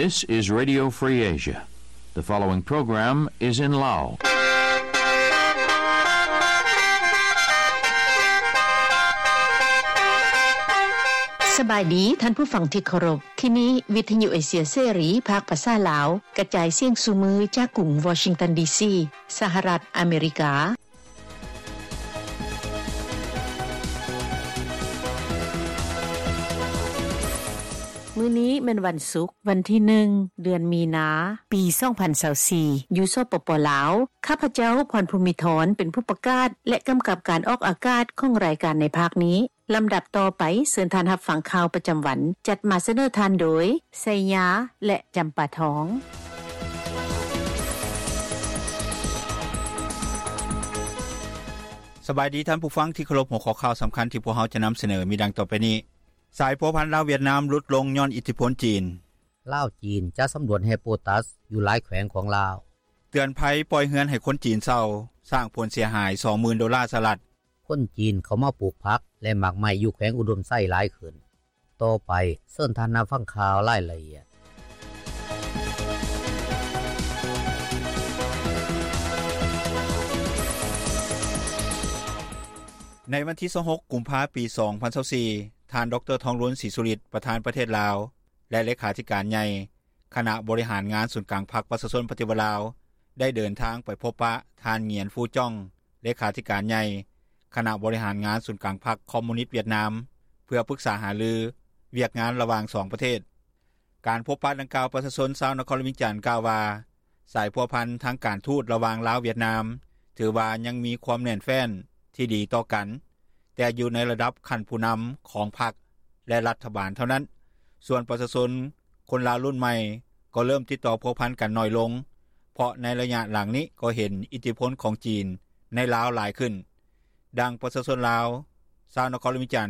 This is Radio Free Asia. The following program is in Lao. ສະບາຍດີທ່ານຜູ້ຟັງທີ່ເຄົາລົບ. ທີ່ນີ້ວິທະຍຸເອເຊຍເສລີ ພາກພາສາລາວ ກະຈາຍສຽງສູ່ມື້ຈາກກຸງວໍຊິງຕັນ ດີຊີ ສະຫະລັດອາເມລິກາ. ມື້ນີ້ແມ່ນວັນສຸກ ວັນທີໜຶ່ງ ເດືອນມີນາ ປີສອງພັນຊາວສີ່ ຢູ່ ສປປ ລາວ. ຂ້າພະເຈົ້າ ພອນພູມິທອນ ເປັນຜູ້ປະກາດ ແລະ ກຳກັບການອອກອາກາດຂອງລາຍການໃນພາກນີ້. ລຳດັບຕໍ່ໄປ ເຊີນທ່ານຮັບຟັງຂ່າວປະຈຳວັນ ຈັດມາສະເໜີທ່ານໂດຍ ໄຊຍາ ແລະ ຈຳປາທອງ. ສະບາຍດີທ່ານຜູ້ຟັງທີ່ເຄົາລົບ, ຫົວຂໍ້ຂ່າວສຳຄັນທີ່ພວກເຮົາຈະນຳສະເໜີມີດັ່ງຕໍ່ໄປນີ້. ສາຍພົວພັນລາວຫວຽດນາມຫຼຸດລົງຍ້ອນອິດທິພົນຈີນ. ລາວ-ຈີນ ຈະສຳຫຼວດແຮ່ໂປຕັສຢູ່ຫຼາຍແຂວງຂອງລາວ. ເຕືອນໄພປ່ອຍເຮືອນໃຫ້ຄົນຈີນເຊົ່າ ສ້າງຜົນເສຍຫາຍສອງໝື່ນໂດລາສະຫະລັດ. ຄົນຈີນເຂົ້າມາປູກຜັກ ແລະ ໝາກໄມ້ຢູ່ແຂວງອຸດົມໄຊຫຼາຍຂຶ້ນ. ຕໍ່ໄປ ເຊີນທ່ານຮັບຟັງຂ່າວລາຍລະອຽດ. ໃນວັນທີຊາວຫົກ ກຸມພາ ປີສອງພັນຊາວສີ່ ທ່ານ ດຣ ທອງລຸນ ສີສຸລິດ ປະທານປະເທດລາວ ແລະ ເລຂາທິການໃຫຍ່ ຄະນະບໍລິຫານງານສູນກາງພັກປະຊາຊົນປະຕິວັດລາວ ໄດ້ເດີນທາງໄປພົບປະທ່ານ ຫງຽນ ຟູຈ່ອງ ເລຂາທິການໃຫຍ່ ຄະນະບໍລິຫານງານສູນກາງພັກຄອມມູນິດຫວຽດນາມ ເພື່ອປຶກສາຫາລືວຽກງານລະຫວ່າງສອງປະເທດ. ການພົບປະດັ່ງກ່າວ ປະຊາຊົນຊາວນະຄອນຫຼວງວຽງຈັນກ່າວວ່າ ສາຍພົວພັນທາງການທູດລະຫວ່າງລາວຫວຽດນາມ ຖືວ່າຍັງມີຄວາມແໜ້ນແຟ້ນທີ່ດີຕໍ່ກັນ, ແຕ່ຢູ່ໃນລະດັບຂັ້ນຜູ້ນຳຂອງພັກ ແລະ ລັດຖະບານເທົ່ານັ້ນ. ສ່ວນປະຊາຊົນຄົນລາວລຸ້ນໃໝ່ກໍເລີ່ມຕິດຕໍ່ພົວພັນກັນໜ້ອຍລົງ, ເພາະໃນໄລຍະຫຼັງນີ້ກໍເຫັນອິດທິພົນຂອງຈີນໃນລາວຫຼາຍຂຶ້ນ. ດັ່ງປະຊາຊົນລາວ ຊາວນະຄອນຫຼວງວຽງຈັນ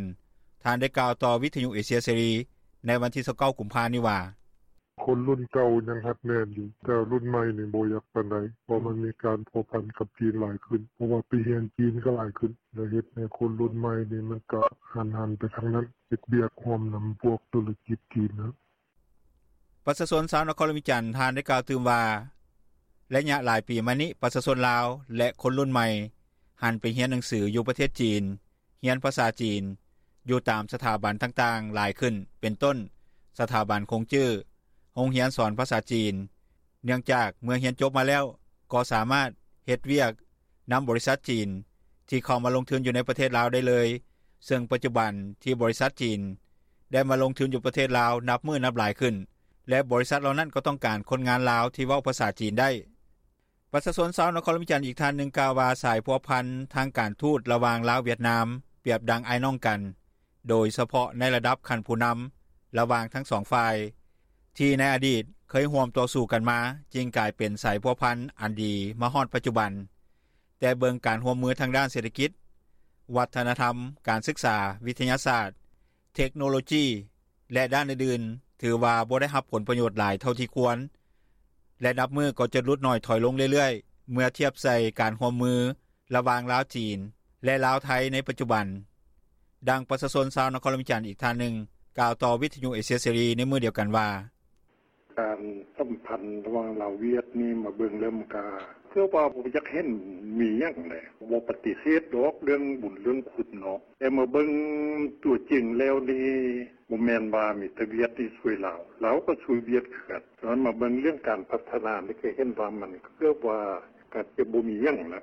ທ່ານໄດ້ກ່າວຕໍ່ວິທະຍຸເອເຊຍເສລີໃນວັນທີຊາວເກົ້າ ກຸມພານີ້ວ່າ, ຄົນລຸ້ນເກົ່າຍັງຮັດແໜ້ນຢູ່, ແຕ່ລຸ້ນໃໝ່ນີ້ບໍ່ຢາກປານໃດ, ເພາະມັນມີການພົວພັນກັບຈີນຫຼາຍຂຶ້ນ, ເພາະວ່າໄປຮຽນຈີນກໍຫຼາຍຂຶ້ນ, ແລ້ວເຮັດໃຫ້ຄົນລຸ້ນໃໝ່ນີ້ມັນກໍຫັນໆໄປທາງນັ້ນ, ເຮັດວຽກຮ່ວມນຳພວກທຸລະກິດຈີນນະ. ປະຊາຊົນຊາວນະຄອນຫຼວງວຽງຈັນ ທ່ານໄດ້ກ່າວຕື່ມວ່າ, ໄລຍະຫຼາຍປີມານີ້ ປະຊາຊົນລາວ ແລະ ຄົນລຸ້ນໃໝ່ ຫັນໄປຮຽນໜັງສືຢູ່ປະເທດຈີນ, ຮຽນພາສາຈີນຢູ່ຕາມສະຖາບັນຕ່າງໆຫຼາຍຂຶ້ນ, ເປັນຕົ້ນ ສະຖາບັນຂົງຈື້, ໂຮງຮຽນສອນພາສາຈີນ, ເນື່ອງຈາກເມື່ອຮຽນຈົບມາແລ້ວ ກໍສາມາດເຮັດວຽກນຳບໍລິສັດຈີນທີ່ເຂົ້າມາລົງທຶນຢູ່ໃນປະເທດລາວໄດ້ເລີຍ, ເຊິ່ງປັດຈຸບັນທີ່ບໍລິສັດຈີນໄດ້ມາລົງທຶນຢູ່ປະເທດລາວນັບມື້ນັບຫຼາຍຂຶ້ນ ແລະ ບໍລິສັດເຫຼົ່ານັ້ນກໍຕ້ອງການຄົນງານລາວທີ່ເວົ້າພາສາຈີນໄດ້. ປະຊາຊົນຊາວນະຄອນຫຼວງວຽງຈັນອີກທ່ານໜຶ່ງກ່າວວ່າ ສາຍພົວພັນທາງການທູດລະຫວ່າງລາວຫວຽດນາມ ປຽບດັ່ງອ້າຍນ້ອງກັນ, ໂດຍສະເພາະໃນລະດັບຂັ້ນຜູ້ນຳລະຫວ່າງທັງສອງຝ່າຍ ທີ່ໃນອະດີດເຄີຍຮ່ວມຕໍ່ສູ້ກັນມາ, ຈຶ່ງກາຍເປັນສາຍພົວພັນອັນດີມາຮອດປັດຈຸບັນ. ແຕ່ເບິ່ງການຮ່ວມມືທາງດ້ານເສດຖະກິດ, ວັດທະນະທຳ, ການສຶກສາ, ວິທະຍາສາດ, ເທັກໂນໂລຈີ ແລະ ດ້ານອື່ນໆ ຖືວ່າບໍ່ໄດ້ຮັບຜົນປະໂຫຍດຫຼາຍເທົ່າທີ່ຄວນ ແລະ ນັບມື້ກໍຈະຫຼຸດໜ້ອຍຖອຍລົງເລື້ອຍໆ ເມື່ອທຽບໃສ່ການຮ່ວມມືລະຫວ່າງລາວ-ຈີນ ແລະ ລາວ-ໄທໃນປັດຈຸບັນ. ດັ່ງປະຊາຊົນຊາວນະຄອນຫຼວງວຽງຈັນອີກທ່ານໜຶ່ງ ກ່າວຕໍ່ວິທະຍຸເອເຊຍເສລີໃນມື້ດຽວກັນວ່າ, ການສຳພັນລະຫວ່າງລາວ-ຫວຽດນີ້ ມາເບິ່ງແລ້ວມັນກະຄືວ່າບໍ່ຢາກເຫັນມີຫຍັງແຫຼະ, ບໍ່ປະຕິເສດດອກເລື່ອງບຸນເລື່ອງຄຸນເນາະ, ແຕ່ມາເບິ່ງຕົວຈິງແລ້ວນີ້ ບໍ່ແມ່ນວ່າມີແຕ່ຫວຽດນີ້ຊ່ວຍລາວ, ລາວກໍຊ່ວຍຫວຽດຄືກັນ. ສະນັ້ນມາເບິ່ງເລື່ອງການພັດທະນານີ້ ກໍເຫັນວ່າມັນເກືອບວ່າກໍຈະບໍ່ມີຫຍັງລະ.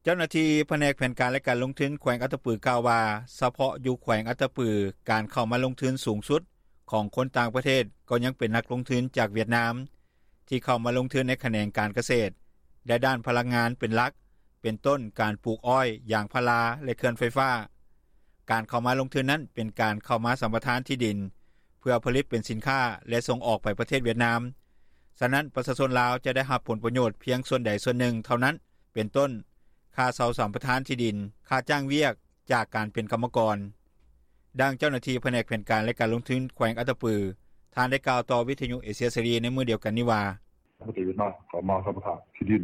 ເຈົ້າໜ້າທີ່ພະແນກແຜນການ ແລະ ການລົງທຶນແຂວງອັດຕະປືກ່າວວ່າ, ສະເພາະຢູ່ແຂວງອັດຕະປື ການເຂົ້າມາລົງທຶນສູງສຸດຂອງຄົນຕ່າງປະເທດກໍຍັງເປັນນັກລົງທຶນຈາກຫວຽດນາມ ທີ່ເຂົ້າມາລົງທຶນໃນຂະແໜງການກະເສດ ແລະ ດ້ານພະລັງງານເປັນຫຼັກ, ເປັນຕົ້ນການປູກອ້ອຍ, ຢາງພາລາ ແລະ ເຂື່ອນໄຟຟ້າ. ການເຂົ້າມາລົງທຶນນັ້ນເປັນການເຂົ້າມາສຳປະທານທີ່ດິນ ເພື່ອຜະລິດເປັນສິນຄ້າ ແລະ ສົ່ງອອກໄປປະເທດຫວຽດນາມ. ສະນັ້ນ ປະຊາຊົນລາວຈະໄດ້ຮັບຜົນປະໂຫຍດພຽງສ່ວນໃດສ່ວນໜຶ່ງເທົ່ານັ້ນ, ເປັນຕົ້ນ ຄ່າເຊົ່າສຳປະທານທີ່ດິນ, ຄ່າຈ້າງວຽກຈາກການເປັນກຳມະກອນ. ດັ່ງເຈົ້າໜ້າທີ່ພະແນກແຜນການ ແລະ ການລົງທຶນແຂວງອັດຕະປື ທ່ານໄດ້ກ່າວຕໍ່ວິທະຍຸເອເຊຍເສລີໃນມື້ດຽວກັນນີ້ວ່າ, ປະເທດຫວຽດນາມເຂົ້າມາສຳປະທານທີ່ດິນ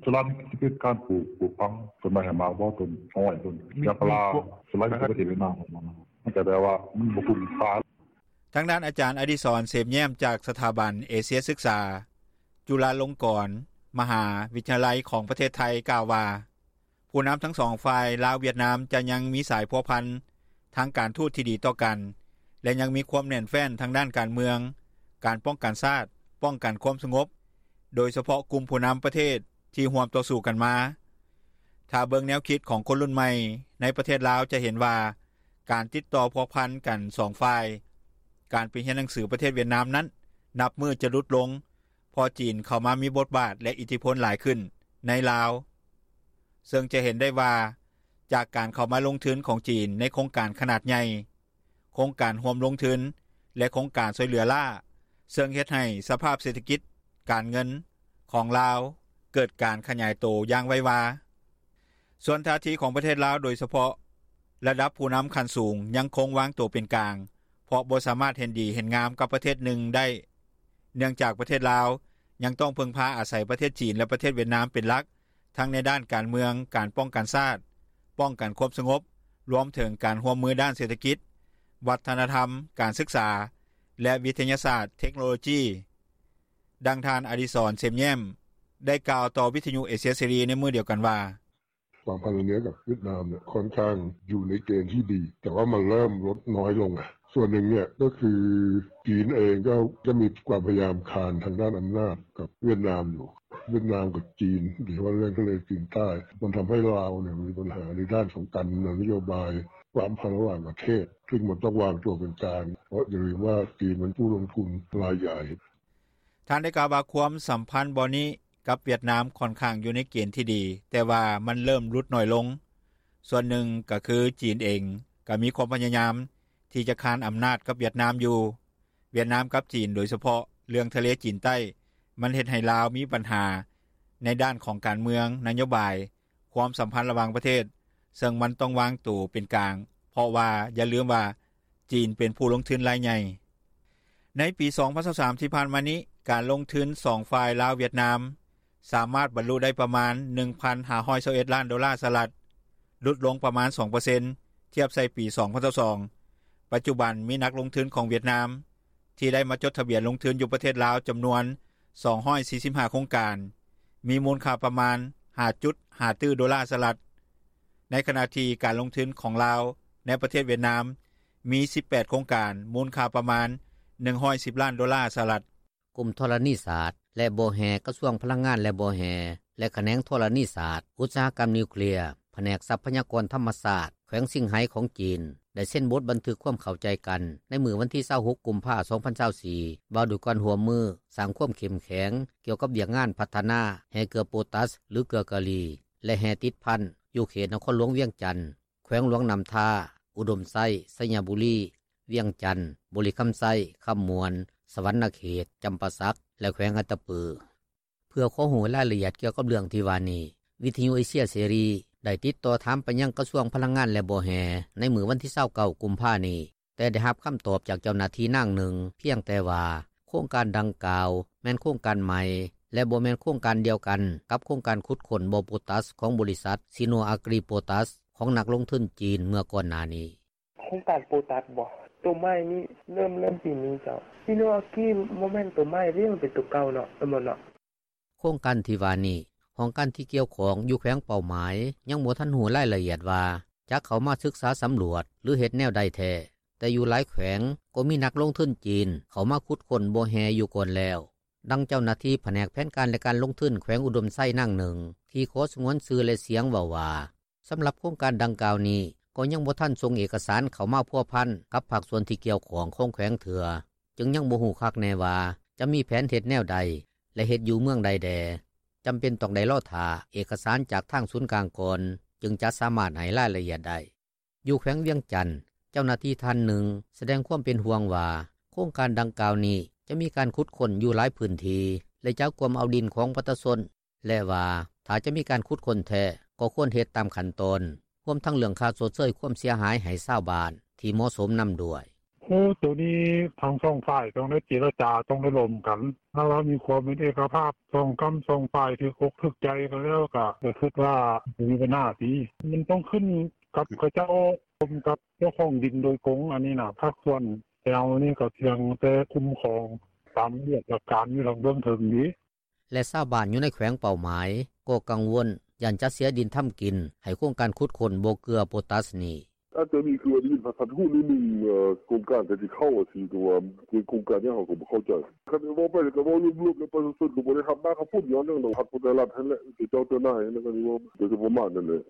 ສ່ວນຫຼາຍຈະເປັນການປູກ, ປູກຝັງ, ຕົ້ນໄມ້ໃຫ້ໝາກບໍ່, ຕົ້ນອ້ອຍ, ຕົ້ນຢາງພາລາ, ສ່ວນຫຼາຍຈະເປັນປະເທດຫວຽດນາມເຂົ້າມາ, ມັນກະແບບວ່າມັນບໍ່ຄຸ້ມຄ່າ. ທາງດ້ານ ອາຈານ ອະດິສອນ ເສມແຍ້ມ ຈາກສະຖາບັນເອເຊຍສຶກສາ ຈຸລາລົງກອນ ມະຫາວິທະຍາໄລ ຂອງປະເທດໄທ ກ່າວວ່າ ຜູ້ນຳທັງສອງຝ່າຍ ລາວ-ຫວຽດນາມ ຈະຍັງມີສາຍພົວພັນ ທາງການທູດທີ່ດີຕໍ່ກັນ ແລະຍັງມີຄວາມແໜ້ນແຟ້ນ ທາງດ້ານການເມືອງ, ການປ້ອງກັນຊາດ, ປ້ອງກັນຄວາມສະຫງົບ ໂດຍສະເພາະກຸ່ມຜູ້ນຳປະເທດ ທີ່ຮ່ວມຕໍ່ສູ້ກັນມາ. ຖ້າເບິ່ງແນວຄິດຂອງຄົນລຸ້ນໃໝ່ ໃນປະເທດລາວ ຈະເຫັນວ່າ ການຕິດຕໍ່ພົວພັນກັນສອງຝ່າຍ, ການໄປຮຽນໜັງສືປະເທດຫວຽດນາມນັ້ນ ນັບມື້ຈະຫຼຸດລົງ ເພາະຈີນເຂົ້າມາມີບົດບາດ ແລະອິດທິພົນຫຼາຍຂຶ້ນ ໃນລາວ ເຊິ່ງຈະເຫັນໄດ້ວ່າ ຈາກການເຂົ້າມາລົງທຶນຂອງຈີນ ໃນໂຄງການຂະໜາດໃຫຍ່, ໂຄງການຮ່ວມລົງທຶນ ແລະໂຄງການຊ່ອຍເຫຼືອລ້າ ເຊິ່ງເຮັດໃຫ້ສະພາບເສດຖະກິດ-ການເງິນ ຂອງລາວ ເກີດການຂະຫຍາຍໂຕຢ່າງໄວວາ. ສ່ວນທ່າທີຂອງປະເທດລາວ ໂດຍສະເພາະລະດັບຜູ້ນຳຂັ້ນສູງ ຍັງຄົງວາງໂຕເປັນກາງ ເພາະບໍ່ສາມາດເຫັນດີເຫັນງາມກັບປະເທດໃດໜຶ່ງໄດ້ ເນື່ອງຈາກປະເທດລາວ ຍັງຕ້ອງເພິ່ງພາອາໄສປະເທດຈີນ ແລະປະເທດຫວຽດນາມເປັນຫຼັກ ທັງໃນດ້ານການເມືອງ, ການປ້ອງກັນຊາດ, ປ້ອງກັນຄວາມສະຫງົບ ລວມເຖິງການຮ່ວມມືດ້ານເສດຖະກິດ, ວັດທະນະທຳ, ການສຶກສາ ແລະວິທະຍາສາດ-ເທັກໂນໂລຈີ. ດັ່ງທ່ານ ອະດິສອນ ເສມແຍ້ມ ໄດ້ກ່າວຕໍ່ວິທະຍຸເອເຊຍເສລີ ໃນມື້ດຽວກັນວ່າ: ຄວາມພັນລະມິດກັບຫວຽດນາມເນຍ ຂ້ອນຂ້າງຢູ່ໃນເກນທີ່ດີ ແຕ່ວ່າມັນເລີ່ມລົດນ້ອຍລົງ ສ່ວນໜຶ່ງເນຍກໍຄືຈີນເອງກໍຈະມີຄວາມພະຍາຍາມຄານທາງດ້ານອຳນາດກັບຫວຽດນາມຢູ່. ຫວຽດນາມກັບຈີນ ໂດຍສະເພາະເລື່ອງທະເລຈີນໃຕ້ ມັນທຳໃຫ້ລາວເນຍມີບັນຫາໃນດ້ານຂອງການນະໂຍບາຍ ຄວາມພັນລະຫວ່າງປະເທດ ຊຶ່ງມັນຕ້ອງວາງຕົວເປັນກາງ ເພາະຢ່າລືມວ່າຈີນມັນຜູ້ລົງທຶນລາຍໃຫຍ່. ທ່ານໄດ້ກ່າວວ່າ ຄວາມສຳພັນບ່ອນນີ້ກັບຫວຽດນາມ ຂ້ອນຂ້າງຢູ່ໃນເກນທີ່ດີ ແຕ່ວ່າມັນເລີ່ມຫຼຸດໜ້ອຍລົງ. ສ່ວນໜຶ່ງກໍຄືຈີນເອງ ກໍມີຄວາມພະຍາຍາມທີ່ຈະຄານອຳນາດກັບຫວຽດນາມຢູ່. ຫວຽດນາມກັບຈີນ ໂດຍສະເພາະເລື່ອງທະເລຈີນໃຕ້ ມັນເຮັດໃຫ້ລາວມີບັນຫາໃນດ້ານຂອງການເມືອງ, ນະໂຍບາຍ, ຄວາມສຳພັນລະຫວ່າງປະເທດ ເຊິ່ງມັນຕ້ອງວາງໂຕເປັນກາງ ເພາະວ່າຢ່າລືມວ່າ ຈີນເປັນຜູ້ລົງທຶນລາຍໃຫຍ່. ໃນປີສອງພັນຊາວສາມ ທີ່ຜ່ານມານີ້ ການລົງທຶນສອງຝ່າຍ ລາວ-ຫວຽດນາມ ສາມາດບັນລຸໄດ້ປະມານ ໜຶ່ງພັນຫ້າຮ້ອຍຊາວເອັດລ້ານໂດລາສະຫະລັດ, ຫຼຸດລົງປະມານສອງເປີເຊັນ ທຽບໃສ່ປີສອງພັນຊາວສອງ. ປັດຈຸບັນມີນັກລົງທຶນຂອງຫວຽດນາມ ທີ່ໄດ້ມາຈົດທະບຽນລົງທຶນຢູ່ປະເທດລາວ ຈຳນວນສອງຮ້ອຍສີ່ສິບຫ້າໂຄງການ, ມີມູນຄ່າປະມານຫ້າຈຸດຫ້າຕື້ໂດລາສະຫະລັດ, ໃນຂະນະທີ່ການລົງທຶນຂອງລາວໃນປະເທດຫວຽດນາມ ມີສິບແປດໂຄງການ ມູນຄ່າປະມານໜຶ່ງຮ້ອຍສິບລ້ານໂດລາສະຫະລັດ. ກົມທໍລະນີສາດ ແລະບໍ່ແຮ່ ກະຊວງພະລັງງານ ແລະບໍ່ແຮ່ ແລະຂະແໜງທໍລະນີສາດ ອຸດສາຫະກຳນິວເຄລຍ ພະແນກຊັບພະຍາກອນທຳມະຊາດ ແຂວງຊິງໄຫຂອງຈີນ ໄດ້ເຊັນບົດບັນທຶກຄວາມເຂົ້າໃຈກັນ ໃນມື້ວັນທີຊາວຫົກ ກຸມພາ ສອງພັນຊາວສີ່ ວ່າດ້ວຍການຮ່ວມມືສ້າງຄວາມເຂັ້ມແຂງ ກ່ຽວກັບວຽກງານພັດທະນາແຮ່ເກືອໂປຕັສ ຫຼືເກືອກາລີ ແລະແຮ່ຕິດພັນ ຢູ່ເຂດນະຄອນຫຼວງວຽງຈັນ, ແຂວງຫຼວງນ້ຳທາ, ອຸດົມໄຊ, ໄຊຍະບູລີ, ວຽງຈັນ, ບໍລິຄຳໄຊ, ຄຳມ່ວນ, ສະຫວັນນະເຂດ, ຈຳປາສັກ ແລະແຂວງອັດຕະປື. ເພື່ອຂໍຮູ້ລາຍລະອຽດກ່ຽວກັບເລື່ອງທີ່ວ່ານີ້ ວິທະຍຸເອເຊຍເສລີ ໄດ້ຕິດຕໍ່ຖາມໄປຍັງກະຊວງພະລັງງານ ແລະບໍ່ແຮ່ ໃນມື້ວັນທີຊາວເກົ້າ ກຸມພານີ້, ແຕ່ໄດ້ຮັບຄຳຕອບຈາກເຈົ້າໜ້າທີ່ນາງໜຶ່ງ ພຽງແຕ່ວ່າ ໂຄງການດັ່ງກ່າວ ແມ່ນໂຄງການໃໝ່ ແລະບໍ່ແມ່ນໂຄງການດຽວກັນກັບໂຄງການຂຸດຄົ້ນບໍ່ໂປຕັສ ຂອງບໍລິສັດ ຊີໂນອາກຣີໂປຕັສ ຂອງນັກລົງທຶນຈີນເມື່ອກ່ອນໜ້ານີ້. ໂຄງການໂປຕັສບໍ? ໂຕໃໝ່ນີ້ເລີ່ມ ເລີ່ມປີນີ້ເຈົ້າ. ຊີໂນອາກຣີບໍ່ແມ່ນໂຕໃໝ່ເດ້ ມັນເປັນໂຕເກົ່າເນາະ ແມ່ນບໍ່ເນາະ? ໂຄງການທີ່ວ່ານີ້ ຫ້ອງການທີ່ກ່ຽວຂ້ອງຢູ່ແຂວງເປົ້າໝາຍ ຍັງບໍ່ທັນຮູ້ລາຍລະອຽດວ່າ ຈະເຂົ້າມາສຶກສາສຳຫຼວດ ຫຼືເຮັດແນວໃດແທ້, ແຕ່ຢູ່ຫຼາຍແຂວງກໍມີນັກລົງທຶນຈີນເຂົ້າມາຂຸດຄົ້ນບໍ່ແຮ່ຢູ່ກ່ອນແລ້ວ. ດັ່ງເຈົ້າໜ້າທີ່ພະແນກແຜນການ ແລະການລົງທຶນແຂວງອຸດົມໄຊນາງໜຶ່ງ ທີ່ຂໍສະຫງວນຊື່ ແລະສຽງເວົ້າວ່າ ສຳລັບໂຄງການດັ່ງກ່າວນີ້ ກໍຍັງບໍ່ທັນສົ່ງເອກະສານເຂົ້າມາພົວພັນກັບພາກສ່ວນທີ່ກ່ຽວຂ້ອງຂອງແຂວງເທື່ອ, ຈຶ່ງຍັງບໍ່ຮູ້ຄັກແນ່ວ່າຈະມີແຜນເຮັດແນວໃດ ແລະເຮັດຢູ່ເມືອງໃດແດ່. ຈຳເປັນຕ້ອງໄດ້ລໍຖ້າເອກະສານຈາກທາງສູນກາງກ່ອນ ຈຶ່ງຈະສາມາດໃຫ້ລາຍລະອຽດໄດ້. ຢູ່ແຂວງວຽງຈັນ, ເຈົ້າໜ້າທີ່ທ່ານໜຶ່ງສະແດງຄວາມເປັນຫ່ວງວ່າ ໂຄງການດັ່ງກ່າວນີ້ຈະມີການຂຸດຄົ້ນຢູ່ຫຼາຍພື້ນທີ່ ແລະຈະກວມເອົາດິນຂອງປະຊາຊົນ ແລະວ່າ ຖ້າຈະມີການຂຸດຄົ້ນແທ້ ກໍຄວນເຮັດຕາມຂັ້ນຕອນ ຮວມທັງເລື່ອງຄ່າຊົດເຊີຍຄວາມເສຍຫາຍໃຫ້ຊາວບ້ານທີ່ເໝາະສົມນຳດ້ວຍ. ໂອ້ ໂຕນີ້ທັງສອງຝ່າຍຕ້ອງໄດ້ເຈລະຈາ ຕ້ອງໄດ້ລົມກັນ. ຖ້າວ່າມີຄວາມເປັນເອກະພາບ ສອງກຳສອງຝ່າຍຖືກອົກຖືກໃຈກັນແລ້ວ ກະ ກະຄິດວ່າບໍ່ມີບັນຫາຕິ. ມັນຕ້ອງຂຶ້ນກັບເຂົາເຈົ້າ ລົມກັບເຈົ້າຂອງດິນໂດຍກົງ. ອັນນີ້ນະ ພາກສ່ວນ ແຕ່ເຮົານີ້ກໍພຽງແຕ່ຄຸ້ມຄອງຕາມວຽກການຢູ່ທາງເບື້ອງເທິງເດ." ແລະຊາວບ້ານຢູ່ໃນແຂວງເປົ້າໝາຍ ກໍກັງວົນຢ້ານຈະເສຍດິນທຳກິນ ໃຫ້ໂຄງການຂຸດຄົ້ນບໍ່ເກືອໂປຕາສນີ້. ອາດຈະມີຄືວ່າໄດ້ຍິນຜ່ານໆຫູໜຶ່ງໆ ໂຄງການກະຊິເຂົ້າວ່າຊີ້ ແຕ່ວ່າເປັນໂຄງການຫຍັງເຮົາກໍບໍ່ເຂົ້າໃຈ. ຄັນເວົ້າໄປກໍເວົ້າລວມໆ ແລ້ວປະຊາຊົນກໍບໍ່ໄດ້ຮັບໜ້າຮັບຜົນຫຍັງດອກ ຮັບແຕ່ລັດຫັ້ນແຫຼະ ເຈົ້າເຈົ້ານາຍຫັ້ນແຫຼະ ກໍຊິເວົ້າໄປປະມານນັ້ນແຫຼະ.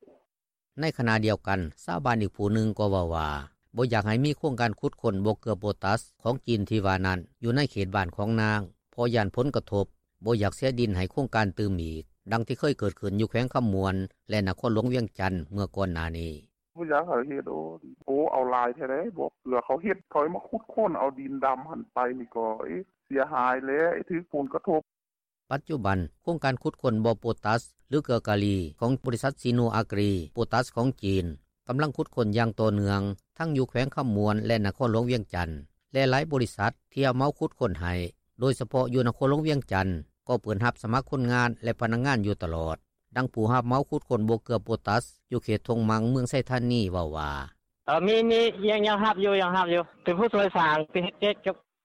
ໃນຂະນະດຽວກັນ ຊາວບ້ານອີກຜູ້ໜຶ່ງກໍເວົ້າວ່າ ບໍ່ຢາກໃຫ້ມີໂຄງການຂຸດຄົ້ນບໍ່ເກືອໂປຕາສຂອງຈີນທີ່ວ່ານັ້ນ ຢູ່ໃນເຂດບ້ານຂອງນາງ ເພາະຢ້ານຜົນກະທົບ, ບໍ່ຢາກເສຍດິນໃຫ້ໂຄງການຕື່ມອີກ ດັ່ງທີ່ເຄີຍເກີດຂຶ້ນຢູ່ແຂວງຄຳມ່ວນ ແລະນະຄອນຫຼວງວຽງຈັນ ເມື່ອກ່ອນໜ້ານີ້. ບໍ່ຢາກໃຫ້ເຮັດ ໂອ້ ເອົາຫຼາຍແທ້ໃດ໋ ບໍ່ເກືອເຂົາເຮັດ ເຂົາມາຂຸດຄົ້ນເອົາດິນດຳຫັ້ນໄປນີ້ກໍ ເອະ ເສຍຫາຍແຫຼະ ຖືກຜົນກະທົບ. ປັດຈຸບັນ ໂຄງການຂຸດຄົ້ນບໍ່ໂປຕາສ ຫຼື ເກືອກາລີ ຂອງບໍລິສັດ ຊີໂນອາກຣີ ໂປຕາສຂອງຈີນ ກຳລັງຂຸດຄົ້ນຢ່າງຕໍ່ເນື່ອງ ທັງຢູ່ແຂວງຄຳມ່ວນ ແລະນະຄອນຫຼວງວຽງຈັນ ແລະຫຼາຍບໍລິສັດທີ່ຮັບເໝົາຂຸດຄົ້ນໃຫ້ ໂດຍສະເພາະຢູ່ນະຄອນຫຼວງວຽງຈັນ ກໍເປີດຮັບສະໝັກຄົນງານ ແລະພະນັກງານຢູ່ຕະຫຼອດ. ດັ່ງຜູ້ຮັບເໝົາຂຸດຄົ້ນບໍ່ເກືອໂປຕາສ ຢູ່ເຂດທົ່ງມັງ ເມືອງໄຊທານີ ເວົ້າວ່າ: ເອີ ມີ ມີ ຍັງ ຍັງຮັບຢູ່ ຍັງຮັບຢູ່ ເປັນຜູ້ຊ່ວຍສ້າງ ເຮັດ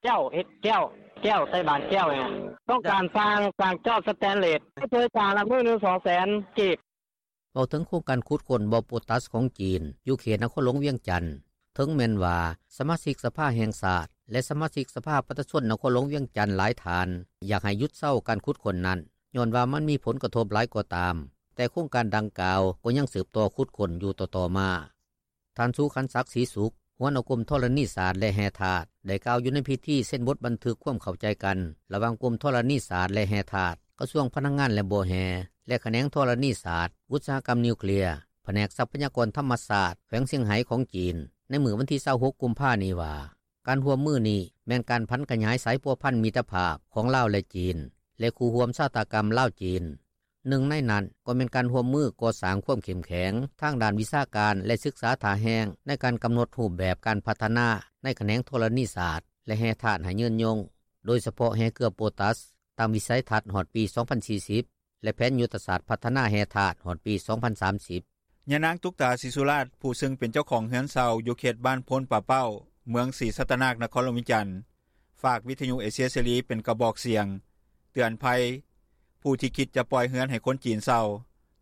ແກ້ວ ເຮັດແກ້ວ ແກ້ວໃສ່ບາດແກ້ວນີ້ ຕ້ອງການສ້າງ ສ້າງຈອກສະແຕນເລດ ຜູ້ຊ່ວຍສ້າງລະມື້ໜຶ່ງສອງແສນກີບ. ເວົ້າເຖິງໂຄງການຂຸດຄົ້ນບໍ່ໂປຕາສຂອງຈີນ ຢູ່ເຂດນະຄອນຫຼວງວຽງຈັນ ເຖິງແມ່ນວ່າສະມາຊິກສະພາແຫ່ງຊາດ ແລະສະມາຊິກສະພາປະຊາຊົນນະຄອນຫຼວງວຽງຈັນຫຼາຍທ່ານ ຢາກໃຫ້ຢຸດເຊົາການຂຸດຄົ້ນນັ້ນ ຍ້ອນວ່າມັນມີຜົນກະທົບຫຼາຍກໍຕາມ, ແຕ່ໂຄງການດັ່ງກ່າວກໍຍັງສືບຕໍ່ຂຸດຄົ້ນຢູ່ຕໍ່ໆມາ. ທ່ານ ສຸຂັນສັກ ສີສຸກ ຫົວໜ້າກົມທໍລະນີສາດ ແລະແຮ່ທາດ ໄດ້ກ່າວຢູ່ໃນພິທີເຊັນບົດບັນທຶກຄວາມເຂົ້າໃຈກັນ ລະຫວ່າງກົມທໍລະນີສາດ ແລະແຮ່ທາດ ກະຊວງພະລັງງານ ແລະບໍ່ແຮ່ ແລະຂະແໜງທໍລະນີສາດ ອຸດສາຫະກຳນິວເຄລຍ ພະແນກຊັບພະຍາກອນທຳມະຊາດ ແຂວງຊຽງໄຮ້ຂອງຈີນ ໃນມື້ວັນທີຊາວຫົກ ກຸມພານີ້ວ່າ ການຮ່ວມມືນີ້ແມ່ນການຜັນຂະຫຍາຍສາຍພົວພັນມິດຕະພາບຂອງລາວ ແລະຈີນ ແລະຄູ່ຮ່ວມຊະຕາກັມລາວ-ຈີນ. ໜຶ່ງໃນນັ້ນກໍແມ່ນການຮ່ວມມືກໍ່ສ້າງຄວາມເຂັ້ມແຂງທາງດ້ານວິຊາການ ແລະສຶກສາທ່າແຮງ ໃນການກຳນົດຮູບແບບການພັດທະນາໃນຂະແໜງທໍລະນີສາດ ແລະແຮ່ທາດໃຫ້ຍືນຍົງ, ໂດຍສະເພາະແຮ່ເກືອໂປຕາສ ຕາມວິໄສທັດຮອດປີສອງພັນສີ່ສິບ ແລະແຜນຍຸດທະສາດພັດທະນາແຮ່ທາດຮອດປີສອງພັນສາມສິບ. ຍານາງ ຕຸກຕາ ສີສຸລາດ ຜູ້ເຊິ່ງເປັນເຈົ້າຂອງເຮືອນເຊົ່າຢູ່ເຂດບ້ານໂພນປາເປົ້າ ເມືອງສີສັດຕະນາກ ນະຄອນຫຼວງວຽງຈັນ ຝາກວິທະຍຸເອເຊຍເສລີເປັນກະບອກສຽງເຕືອນໄພ ຜູ້ທີ່ຄິດຈະປ່ອຍເຮືອນໃຫ້ຄົນຈີນເຊົ່າ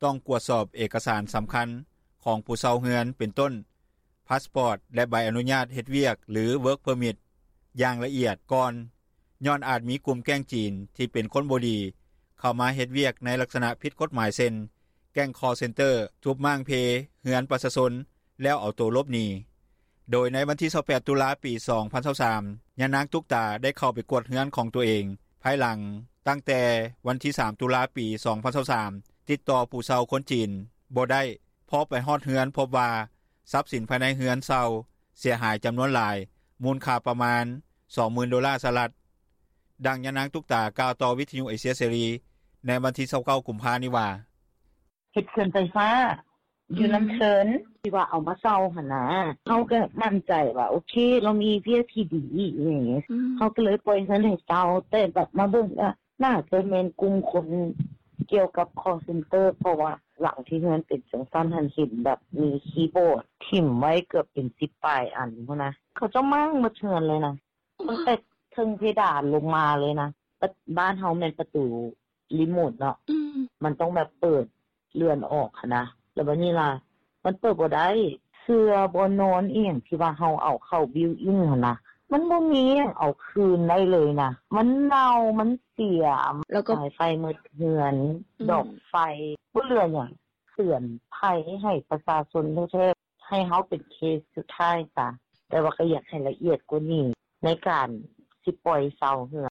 ຕ້ອງກວດສອບເອກະສານສຳຄັນຂອງຜູ້ເຊົ່າເຮືອນ ເປັນຕົ້ນ ພາສປອດ ແລະໃບອະນຸຍາດເຮັດວຽກ ຫຼື Work Permit ຢ່າງລະອຽດກ່ອນ ຍ້ອນອາດມີກຸ່ມແກ້ງຈີນທີ່ເປັນຄົນບໍ່ດີ ເຂົ້າມາເຮັດວຽກໃນລັກສະນະຜິດກົດໝາຍ ເຊັ່ນ ແກ້ງ call center ທຸບມ້າງເພເຮືອນປະຊາຊົນ ແລ້ວເອົາໂຕຫຼົບໜີ. ໂດຍໃນວັນທີຊາວແປດ ຕຸລາ ປີສອງພັນຊາວສາມ ຍານາງ ຕຸກຕາ ໄດ້ເຂົ້າໄປກວດເຮືອນຂອງຕົວເອງ ພາຍຫຼັງຕັ້ງແຕ່ວັນທີສາມ ຕຸລາ ປີສອງພັນຊາວສາມ ຕິດຕໍ່ຜູ້ເຊົ່າຄົນຈີນບໍ່ໄດ້ ເພາະໄປຮອດເຮືອນພົບວ່າ ຊັບສິນພາຍໃນເຮືອນເຊົ່າເສຍຫາຍຈຳນວນຫຼາຍ ມູນຄ່າປະມານສອງໝື່ນໂດລາສະຫະລັດ. ດັ່ງຍານາງ ຕຸກຕາ ກ່າວຕໍ່ວິທະຍຸເອເຊຍເສລີ ໃນວັນທີຊາວເກົ້າ ກຸມພານີ້ວ່າ: ເຮັດເຂື່ອນໄຟຟ້າ ຢູ່ນຳເທີນ ທີ່ວ່າເອົາມາເຊົ່າຫັ້ນນະ ເຮົາກໍໝັ້ນໃຈວ່າ ໂອເຄ ລາວມີວຽກທີ່ດີອີ່ຫຍັງ ເຮົາກໍເລີຍປ່ອຍເຮືອນໃຫ້ເຊົ່າ ແຕ່ບັດມາເບິ່ງ ໜ້າຈະແມ່ນກຸ່ມຄົນກ່ຽວກັບ call center ເພາະວ່າຫຼັງທີ່ເຮືອນເປັນຈັ່ງຊັ້ນຫັ້ນ ເຫັນແບບມີຄີບອດຖິ້ມໄວ້ເກືອບເປັນສິບປາຍອັນພຸ້ນນະ ເຂົາເຈົ້າມ້າງໝົດເຮືອນເລີຍນະ ຕັ້ງແຕ່ເທິງເພດານລົງມາເລີຍນະ. ບ້ານເຮົາແມ່ນປະຕູຣີໂມດເນາະ ມັນຕ້ອງແບບເປີດເລື່ອນອອກຫັ້ນນະ ແລ້ວບາດນີ້ລະ ມັນເປີດບໍ່ໄດ້ ເສື່ອ ບ່ອນນອນອີ່ຫຍັງທີ່ວ່າເຮົາເອົາເຂົ້າ built in ຫັ້ນນະ ມັນບໍ່ມີຫຍັງເອົາຄືນໄດ້ເລີຍນະ ມັນເນົ່າ ມັນເສຍ ສາຍໄຟໝົດເຮືອນ ດອກໄຟ ບໍ່ເຫຼືອຫຍັງ. ເຕືອນໄພໃຫ້ປະຊາຊົນແທ້ໆ ໃຫ້ເຮົາເປັນເຄສສຸດທ້າຍຊະ ແຕ່ວ່າກໍຢາກໃຫ້ລະອຽດກວ່ານີ້ ໃນການຊິປ່ອຍເຊົ່າເຮືອນ.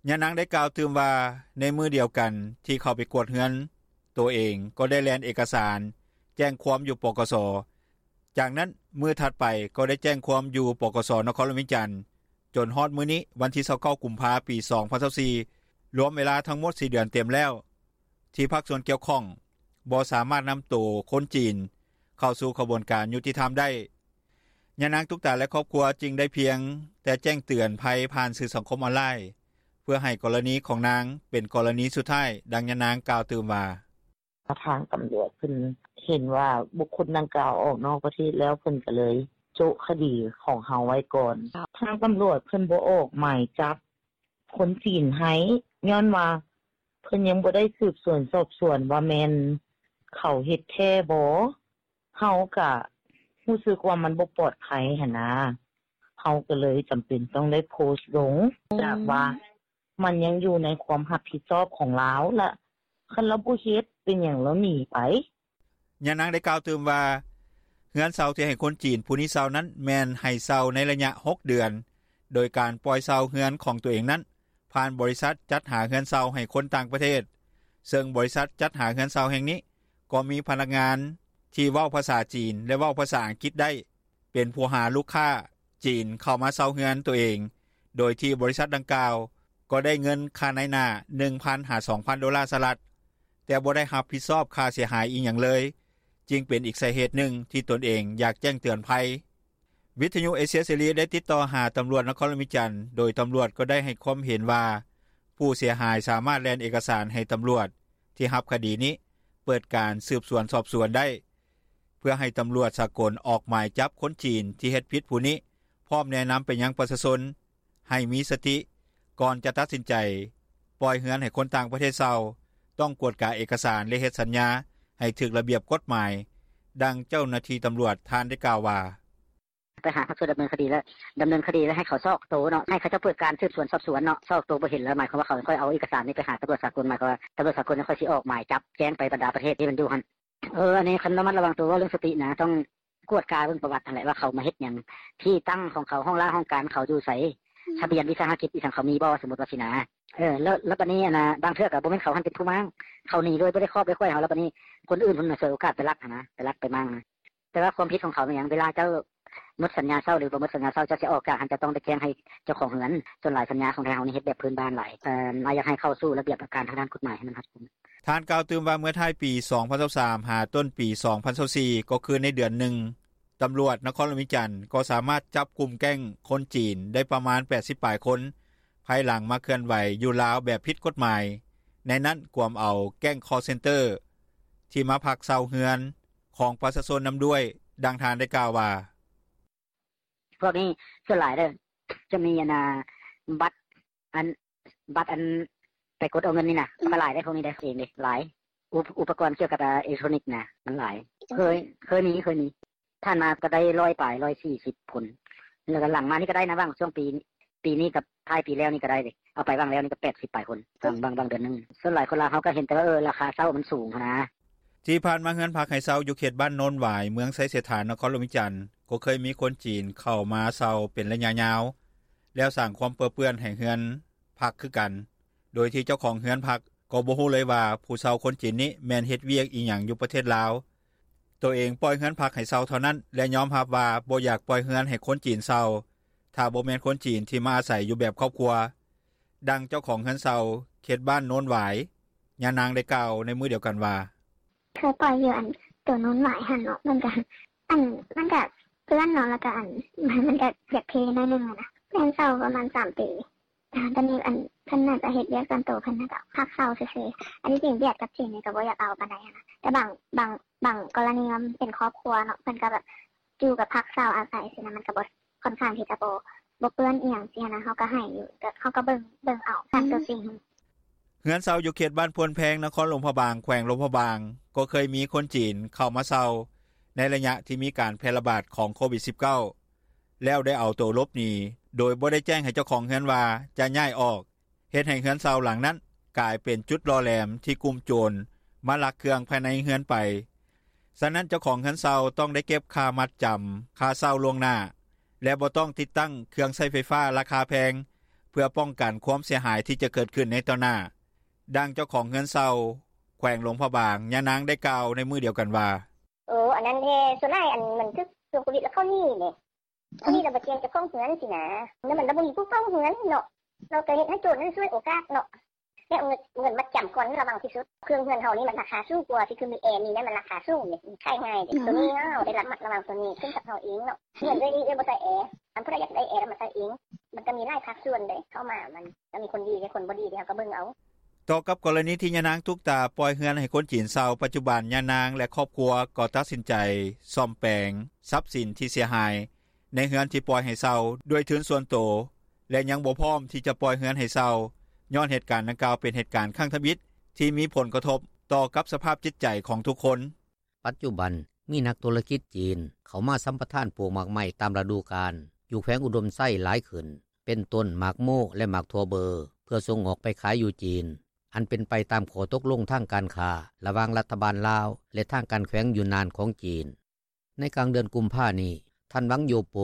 ຍານາງໄດ້ກ່າວຕື່ມວ່າ ໃນມື້ດຽວກັນທີ່ເຂົ້າໄປກວດເຮືອນໂຕເອງ ກໍໄດ້ແລ່ນເອກະສານແຈ້ງຄວາມຢູ່ ປກສ ຈາກນັ້ນມື້ຖັດໄປກໍໄດ້ແຈ້ງຄວາມຢູ່ ປກສ ນະຄອນຫຼວງວຽງຈັນ ຈົນຮອດມື້ນີ້ ວັນທີຊາວເກົ້າ ກຸມພາ ປີສອງພັນຊາວສີ່ ລວມເວລາທັງໝົດສີ່ເດືອນເຕັມແລ້ວ ທີ່ພາກສ່ວນກ່ຽວຂ້ອງບໍ່ສາມາດນຳໂຕຄົນຈີນເຂົ້າສູ່ຂະບວນການຍຸຕິທຳໄດ້. ຍານາງ ຕຸກຕາ ແລະຄອບຄົວຈຶ່ງໄດ້ພຽງແຕ່ແຈ້ງເຕືອນໄພຜ່ານສື່ສັງຄົມອອນລາຍ ເພື່ອໃຫ້ກໍລະນີຂອງນາງເປັນກໍລະນີສຸດທ້າຍ. ດັ່ງຍານາງກ່າວຕື່ມວ່າ: ທາງຕຳຫຼວດເພິ່ນເຫັນວ່າບຸກຄົນດັ່ງກ່າວອອກນອກປະເທດແລ້ວ ເພິ່ນກໍເລີຍ ໂຈະຄະດີຂອງເຮົາໄວ້ກ່ອນ. ທາງຕຳຫຼວດເພິ່ນບໍ່ອອກໝາຍຈັບຄົນຈີນໃຫ້ ຍ້ອນວ່າເພິ່ນຍັງບໍ່ໄດ້ສືບສວນສອບສວນວ່າແມ່ນເຂົາເຮັດແທ້ບໍ່. ເຮົາກະຮູ້ສຶກວ່າມັນບໍ່ປອດໄພຫັ້ນນາ ເຮົາກະເລີຍຈຳເປັນຕ້ອງໄດ້ໂພສລົງ ຈາກວ່າມັນຍັງຢູ່ໃນຄວາມຮັບຜິດຊອບຂອງລາວ ລະຄັນລາວບໍ່ເຮັດ ເປັນຫຍັງລາວໜີໄປ. ຍານາງໄດ້ກ່າວຕື່ມວ່າ ເຮືອນເຊົ່າທີ່ໃຫ້ຄົນຈີນຜູ້ນີ້ເຊົ່ານັ້ນ ແມ່ນໃຫ້ເຊົ່າໃນໄລຍະ ຫົກເດືອນ ໂດຍການປ່ອຍເຊົ່າເຮືອນຂອງໂຕເອງນັ້ນ ຜ່ານບໍລິສັດຈັດຫາເຮືອນເຊົ່າໃຫ້ຄົນຕ່າງປະເທດ ເຊິ່ງບໍລິສັດຈັດຫາເຮືອນເຊົ່າແຫ່ງນີ້ ກໍມີພະນັກງານທີ່ເວົ້າພາສາຈີນ ແລະ ເວົ້າພາສາອັງກິດໄດ້ ເປັນຜູ້ຫາລູກຄ້າຈີນເຂົ້າມາເຊົ່າເຮືອນໂຕເອງ ໂດຍທີ່ບໍລິສັດດັ່ງກ່າວ ກໍໄດ້ເງິນຄ່ານາຍໜ້າ ໜຶ່ງພັນ ຫາ ສອງພັນໂດລາສະຫະລັດ ແຕ່ບໍ່ໄດ້ຮັບຜິດຊອບຄ່າເສຍຫາຍອີ່ຫຍັງເລີຍ ຈຶ່ງເປັນອີກສາເຫດໜຶ່ງທີ່ຕົນເອງຢາກແຈ້ງເຕືອນໄພ. ວິທະຍຸເອເຊຍເສລີໄດ້ຕິດຕໍ່ຫາຕຳຫຼວດນະຄອນຫຼວງວຽງຈັນ ໂດຍຕຳຫຼວດກໍໄດ້ໃຫ້ຄວາມເຫັນວ່າ ຜູ້ເສຍຫາຍສາມາດແລ່ນເອກະສານໃຫ້ຕຳຫຼວດທີ່ຮັບຄະດີນີ້ ເປີດການສືບສວນສອບສວນໄດ້ ເພື່ອໃຫ້ຕຳຫຼວດສາກົນອອກໝາຍຈັບຄົນຈີນທີ່ເຮັດຜິດຜູ້ນີ້ ພ້ອມແນະນຳໄປຍັງປະຊາຊົນ ໃຫ້ມີສະຕິ ກ່ອນຈະຕັດສິນໃຈປ່ອຍເຮືອນໃຫ້ຄົນຕ່າງປະເທດເຊົ່າ ຕ້ອງກວດກາເອກະສານ ແລະ ເຮັດສັນຍາໃຫ້ຖືກລະບຽບກົດໝາຍ. ດັ່ງເຈົ້າໜ້າທີ່ຕຳຫຼວດທ່ານໄດ້ກ່າວວ່າ: "ໄປຫາພາກສ່ວນດຳເນີນຄະດີ ແລ້ວດຳເນີນຄະດີ ແລ້ວໃຫ້ເຂົາຊອກໂຕເນາະ ໃຫ້ເຂົາເຈົ້າເປີດການສືບສວນສອບສວນເນາະ ຊອກໂຕບໍ່ເຫັນແລ້ວ ໝາຍຄວາມວ່າເຂົາຄ່ອຍເອົາເອກະສານນີ້ໄປຫາຕຳຫຼວດສາກົນ ໝາຍຄວາມວ່າຕຳຫຼວດສາກົນຄ່ອຍຊິອອກໝາຍຈັບແຈ້ງໄປບັນດາປະເທດທີ່ມັນຢູ່ຫັ້ນ. ເອີ ອັນນີ້ຄັນລະມັດລະວັງໂຕ ເວົ້າເລື່ອງສະຕິນະ ຕ້ອງກວດກາເບິ່ງປະຫວັດຫັ້ນແຫຼະ ວ່າເຂົາມາເຮັດຫຍັງ ທີ່ຕັ້ງຂອງເຂົາ ຫ້ອງລາຫ້ອງການເຂົາຢູ່ໃສ ທະບຽນວິສາຫະກິດອີ່ຫຍັງເຂົາມີບໍ່ ສົມມຸດວ່າຊີ້ນະ. ເອີ ແລ້ວ ແລ້ວບາດນີ້ ອັນນ່າ ບາງເທື່ອກໍບໍ່ແມ່ນເຂົາຫັ້ນເປັນຜູ້ມ້າງ ເຂົາໜີໂດຍບໍ່ໄດ້ຂອບໄດ້ຄ້ອຍເຮົາ ແລ້ວບາດນີ້ຄົນອື່ນເພິ່ນສວຍໂອກາດໄປລັກຫັ້ນນະ ໄປລັກໄປມ້າງນະ. ແຕ່ວ່າຄວາມຜິດຂອງເຂົາແມ່ນຫຍັງ ເວລາເຈົ້າໝົດສັນຍາເຊົ່າ ຫຼືບໍ່ໝົດສັນຍາເຊົ່າ ເຈົ້າຊິອອກຈາກຫັ້ນ ເຈົ້າຕ້ອງໄດ້ແຈ້ງໃຫ້ເຈົ້າຂອງເຮືອນ. ສ່ວນຫຼາຍສັນຍາຂອງໄທເຮົານີ້ເຮັດແບບພື້ນບ້ານຫຼາຍ ເອີ ອາ ຢາກໃຫ້ເຂົ້າສູ່ລະບຽບການທາງດ້ານກົດໝາຍໃຫ້ມັນຮັດກຸມ." ທ່ານກ່າວຕື່ມວ່າ ເມື່ອທ້າຍປີ ສອງພັນຊາວສາມ ຫາຕົ້ນປີ ສອງພັນຊາວສີ່ ກໍຄືໃນເດືອນໜຶ່ງ ຕຳຫຼວດນະຄອນຫຼວງວຽງຈັນ ກໍສາມາດຈັບກຸ່ມແກ້ງຄົນຈີນໄດ້ປະມານ ແປດສິບປາຍຄົນ ພາຍຫຼັງມາເຄື່ອນໄຫວຢູ່ລາວແບບຜິດກົດໝາຍ ໃນນັ້ນກວມເອົາແກ້ງຄໍເຊັນເຕີ ທີ່ມາພັກເຊົ່າເຮືອນຂອງປະຊາຊົນນຳດ້ວຍ. ດັ່ງທ່ານໄດ້ກ່າວວ່າ: "ພວກນີ້ສ່ວນຫຼາຍເດີ ຈະມີອັນນ່າ ບັດ ອັນ ບັດອັນໄປກົດເອົາເງິນນີ້ນະ ກໍຫຼາຍເດ້ ພວກນີ້ເດ້ ເອງເດ້ ຫຼາຍ ອຸ ອຸປະກອນກ່ຽວກັບ ອາ ເອເລັກໂທຣນິກນະ ມັນຫຼາຍ ເຄີຍ ເຄີຍມີ ເຄີຍມີ ຜ່ານມາກໍໄດ້ຮ້ອຍປາຍ ຮ້ອຍສີ່ສິບຄົນ ແລ້ວກໍຫຼັງມານີ້ກໍໄດ້ນະ ຫວ່າງຊ່ວງປີ ປີນີ້ກັບທ້າຍປີແລ້ວນີ້ກໍໄດ້ເດ້ ເອົາໄປຫວ່າງແລ້ວນີ້ກໍ ແປດສິບປາຍຄົນ ຫວ່າງ ຫວ່າງເດືອນໜຶ່ງ. ສ່ວນຫຼາຍຄົນລາວເຮົາກໍເຫັນແຕ່ວ່າ ເອີ ລາຄາເຊົ່າມັນສູງຫັ້ນນະ." ທີ່ຜ່ານມາເຮືອນພັກໃຫ້ເຊົ່າຢູ່ເຂດບ້ານໂນນຫວາຍ ເມືອງໄຊເສດຖາ ນະຄອນຫຼວງວຽງຈັນ ກໍເຄີຍມີຄົນຈີນເຂົ້າມາເຊົ່າເປັນໄລຍະຍາວ ແລ້ວສ້າງຄວາມເປິເປື້ອນໃຫ້ເຮືອນພັກຄືກັນ ໂດຍທີ່ເຈົ້າຂອງເຮືອນພັກກໍບໍ່ຮູ້ເລີຍວ່າ ຜູ້ເຊົ່າຄົນຈີນນີ້ແມ່ນເຮັດວຽກອີ່ຫຍັງຢູ່ປະເທດລາວ. ໂຕເອງປ່ອຍເຮືອນພັກໃຫ້ເຊົ່າເທົ່ານັ້ນ ແລະ ຍອມຮັບວ່າບໍ່ຢາກປ່ອຍເຮືອນໃຫ້ຄົນຈີນເຊົ່າ ຖ້າບໍ່ແມ່ນຄົນຈີນທີ່ມາອາໄສຢູ່ແບບຄອບຄົວ. ດັ່ງເຈົ້າຂອງເຮືອນເຊົ່າເຂດບ້ານໂນນຫວາຍ ຍານາງໄດ້ກ່າວໃນມື້ດຽວກັນວ່າ: "ເຄີຍປ່ອຍຢູ່ອັນໂຕໂນນຫວາຍຫັ້ນເນາະ ມັນກະ ອັນ ມັນກະເປື້ອນເນາະ ແລ້ວກະອັນ ມັນກະຢາກເພໜ້ອຍໜຶ່ງຫັ້ນນະ ແມ່ນເຊົ່າປະມານສາມປີ ຕອນນີ້ອັນ ເພິ່ນໜ້າຈະເຮັດວຽກສ່ວນໂຕເພິ່ນ ແລ້ວກະພັກເຊົ່າຊື່ໆ. ອັນທີ່ຈິງຫວຽດກັບຈີນນີ້ກະບໍ່ຢາກເອົາປານໃດຫັ້ນນະ ແຕ່ບາງ ບາງ ບາງກໍລະນີມັນເປັນຄອບຄົວເນາະ ເພິ່ນກະແບບຢູ່ກັບພັກເຊົ່າອາໄສຊີ້ນະ ມັນກະບໍ່ ຂ້ອນຂ້າງທີ່ຈະບໍ່ ບໍ່ເປື້ອນອີ່ຫຍັງຊີ້ນະ ເຮົາກໍໃຫ້ຢູ່ ເຮົາກໍເບິ່ງ ເບິ່ງເອົາຕາມຕົວຈິງ." ເຮືອນເຊົ່າຢູ່ເຂດບ້ານໂພນແພງ ນະຄອນຫຼວງພະບາງ ແຂວງຫຼວງພະບາງ ກໍເຄີຍມີຄົນຈີນເຂົ້າມາເຊົ່າ ໃນໄລຍະທີ່ມີການແຜ່ລະບາດຂອງໂຄວິດ ສິບເກົ້າ ແລ້ວໄດ້ເອົາໂຕຫຼົບໜີ ໂດຍບໍ່ໄດ້ແຈ້ງໃຫ້ເຈົ້າຂອງເຮືອນວ່າຈະຍ້າຍອອກ ເຮັດໃຫ້ເຮືອນເຊົ່າຫຼັງນັ້ນກາຍເປັນຈຸດຫຼໍ່ແຫຼມທີ່ກຸ່ມໂຈນມາລັກເຄື່ອງພາຍໃນເຮືອນໄປ. ສະນັ້ນເຈົ້າຂອງເຮືອນເຊົ່າຕ້ອງໄດ້ເກັບຄ່າມັດຈຳ ຄ່າເຊົ່າລ່ວງໜ້າ ແລະ ບໍ່ຕ້ອງຕິດຕັ້ງເຄື່ອງໃຊ້ໄຟຟ້າລາຄາແພງ ເພື່ອປ້ອງກັນຄວາມເສຍຫາຍທີ່ຈະເກີດຂຶ້ນໃນຕໍ່ໜ້າ. ດັ່ງເຈົ້າຂອງເຮືອນເຊົ່າແຂວງຫຼວງພະບາງ ຍານາງໄດ້ກ່າວໃນມື້ດຽວກັນວ່າ: "ໂອ ອັນນັ້ນແທ້ ສ່ວນຫຼາຍອັນມັນຖືກຊ່ວງໂຄວິດແລ້ວເຂົາໜີເດ້ ເຂົາໜີແລ້ວບໍ່ແຈ້ງເຈົ້າຂອງເຮືອນຊີ້ນະ ແລ້ວມັນລະບໍ່ມີຜູ້ເຝົ້າເຮືອນເນາະ ລາວກະເຮັດໃຫ້ໂຈນນັ້ນສວຍໂອກາດເນາະ ແລ້ວເອົາເງິນ ເງິນມັດຈຳກ່ອນລະວັງທີ່ສຸດ ເຄື່ອງເຮືອນເຮົານີ້ມັນລາຄາສູງກວ່າ ທີ່ຄືມີແອນີ້ແຫຼະ ມັນລາຄາສູງເດ້ ມັນຂາຍງ່າຍເດ້ ໂຕນີ້ເຮົາໄດ້ລະມັດລະວັງໂຕນີ້ຂຶ້ນກັບເຮົາເອງເນາະ ເຮືອນເອື້ອຍນີ້ເອື້ອຍບໍ່ໃສ່ແອ ຄັນຜູ້ໃດຢາກໄດ້ແອລະມາໃສ່ເອງ ມັນກະມີຫຼາຍພາກສ່ວນເດ້ ເຂົ້າມາມັນກະມີຄົນດີແລະຄົນບໍ່ດີເດ້ ເຮົາກະເບິ່ງເອົາ." ຕໍ່ກັບກໍລະນີທີ່ຍານາງຕຸກຕາປ່ອຍເຮືອນໃຫ້ຄົນຈີນເຊົ່າ ປັດຈຸບັນຍານາງ ແລະ ຄອບຄົວກໍຕັດສິນໃຈສ້ອມແປງຊັບສິນທີ່ເສຍຫາຍ ໃນເຮືອນທີ່ປ່ອຍໃຫ້ເຊົ່າດ້ວຍທຶນສ່ວນໂຕ ແລະຍັງບໍ່ພ້ອມທີ່ຈະປ່ອຍເຮືອນໃຫ້ເຊົ່າ ຍ້ອນເຫດການດັ່ງກ່າວເປັນເຫດການຄັ້ງທຳອິດ ທີ່ມີຜົນກະທົບຕໍ່ກັບສະພາບຈິດໃຈຂອງທຸກຄົນ. ປັດຈຸບັນມີນັກທຸລະກິດຈີນ ເຂົ້າມາສຳປະທານປູກໝາກໄມ້ຕາມລະດູການ ຢູ່ແຂວງອຸດົມໄຊຫຼາຍຂຶ້ນ ເປັນຕົ້ນໝາກໂມ ແລະໝາກຖົ່ວເບີ ເພື່ອສົ່ງອອກໄປຂາຍຢູ່ຈີນ ອັນເປັນໄປຕາມຂໍ້ຕົກລົງທາງການຄ້າ ລະຫວ່າງລັດຖະບານລາວ ແລະທາງການແຂວງຢູນນານຂອງຈີນ. ໃນກາງເດືອນກຸມພານີ້ ທ່ານ ຫວັງ ໂຢໂປ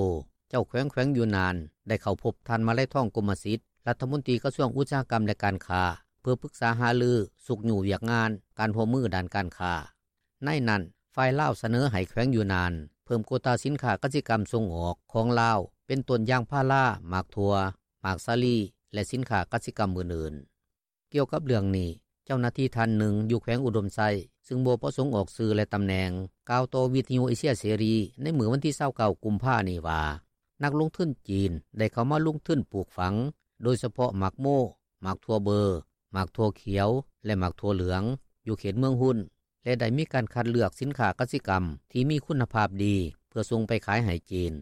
ເຈົ້າແຂວງແຂວງຢູນນານ ໄດ້ເຂົ້າພົບທ່ານ ມາໄລທອງ ກົມມະສິດ ລັດຖະມົນຕີກະຊວງອຸດສາຫະກຳ ແລະການຄ້າ ເພື່ອປຶກສາຫາລືຊຸກຍູ້ວຽກງານ ການຮ່ວມມືດ້ານການຄ້າ. ໃນນັ້ນ ຝ່າຍລາວສະເໜີໃຫ້ແຂວງຢູນນານ ເພີ່ມໂກຕາສິນຄ້າກະສິກຳສົ່ງອອກຂອງລາວ ເປັນຕົ້ນຢາງພາລາ, ໝາກຖົ່ວ, ໝາກສາລີ ແລະສິນຄ້າກະສິກຳອື່ນໆ. ກ່ຽວກັບເລື່ອງນີ້ ເຈົ້າໜ້າທີ່ທ່ານໜຶ່ງຢູ່ແຂວງອຸດົມໄຊ ຊຶ່ງບໍ່ປະສົງອອກຊື່ ແລະຕຳແໜ່ງ ກ່າວຕໍ່ວິທຍຸເອເຊຍເສລີ ໃນມື້ວັນທີ ຊາວເກົ້າ ກຸມພານີ້ວ່າ ນັກລົງທຶນຈີນໄດ້ເຂົ້າມາລົງທຶນປູກຝັງ ໂດຍສະເພາະໝາກໂມ, ໝາກຖົ່ວເບີ, ໝາກຖົ່ວຂຽວ ແລະໝາກຖົ່ວເຫຼືອງ ຢູ່ເຂດເມືອງຮຸນ ແລະໄດ້ມີການຄັດເລືອກສິນຄ້າກະສິກຳ ທີ່ມີຄຸນນະພາບດີ ເພື່ອສົ່ງໄປຂາຍໃຫ້ຈີນ.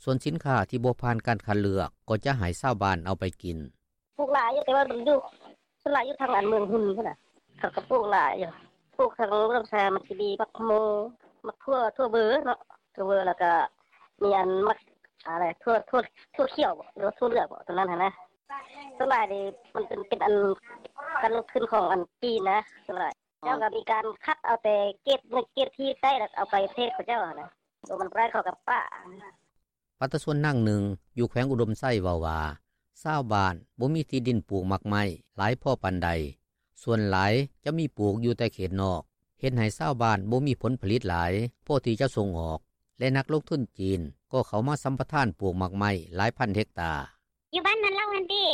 ສ່ວນສິນຄ້າທີ່ບໍ່ຜ່ານການຄັດເລືອກ ກໍຈະໃຫ້ຊາວບ້ານເອົາໄປກິນ. ປູກຫຼາຍຢູ່ ແຕ່ວ່າມັນຢູ່ ສ່ວນຫຼາຍຢູ່ທາງອັນເມືອງຮຸນພຸ້ນນະ ເຂົາກໍປູກຫຼາຍຢູ່ ປູກທັງລຳຊາ ໝາກຈີ່ດີ ໝາກໂມ ໝາກຖົ່ວ ຖົ່ວເບີເນາະ ຖົ່ວເບີ ແລ້ວກໍມີອັນໝາກ ອາ ຖົ່ວ ຖົ່ວ ຖົ່ວຂຽວບໍ ຫຼືວ່າຖົ່ວເຫຼືອງບໍ ຕົວນັ້ນຫັ້ນນະ. ສ່ວນຫຼາຍນີ້ມັນເປັນ ເປັນອັນການລົງທຶນຂອງອັນຈີນນະ ສ່ວນຫຼາຍ ເຈົ້າກໍມີການຄັດເອົາແຕ່ເກຣດໜຶ່ງເກຣດທີ່ໄດ້ ແລ້ວເອົາໄປປະເທດເຂົາເຈົ້າຫັ້ນນະ ໂຕມັນບໍ່ໄດ້ເຂົາກໍປະ. ປະຊາຊົນນາງໜຶ່ງຢູ່ແຂວງອຸດົມໄຊເວົ້າວ່າ ຊາວບ້ານບໍ່ມີທີ່ດິນປູກໝາກໄມ້ຫຼາຍພໍປານໃດ, ສ່ວນຫຼາຍຈະມີປູກຢູ່ແຕ່ເຂດນອກ, ເຮັດໃຫ້ຊາວບ້ານບໍ່ມີຜົນຜະລິດຫຼາຍພໍທີ່ຈະສົ່ງອອກ ແລະນັກລົງທຶນຈີນກໍເຂົ້າມາສຳປະທານປູກໝາກໄມ້ຫຼາຍພັນເຮັກຕາ. ຢູ່ບ້ານນາເລົ່າຫັ້ນຕິ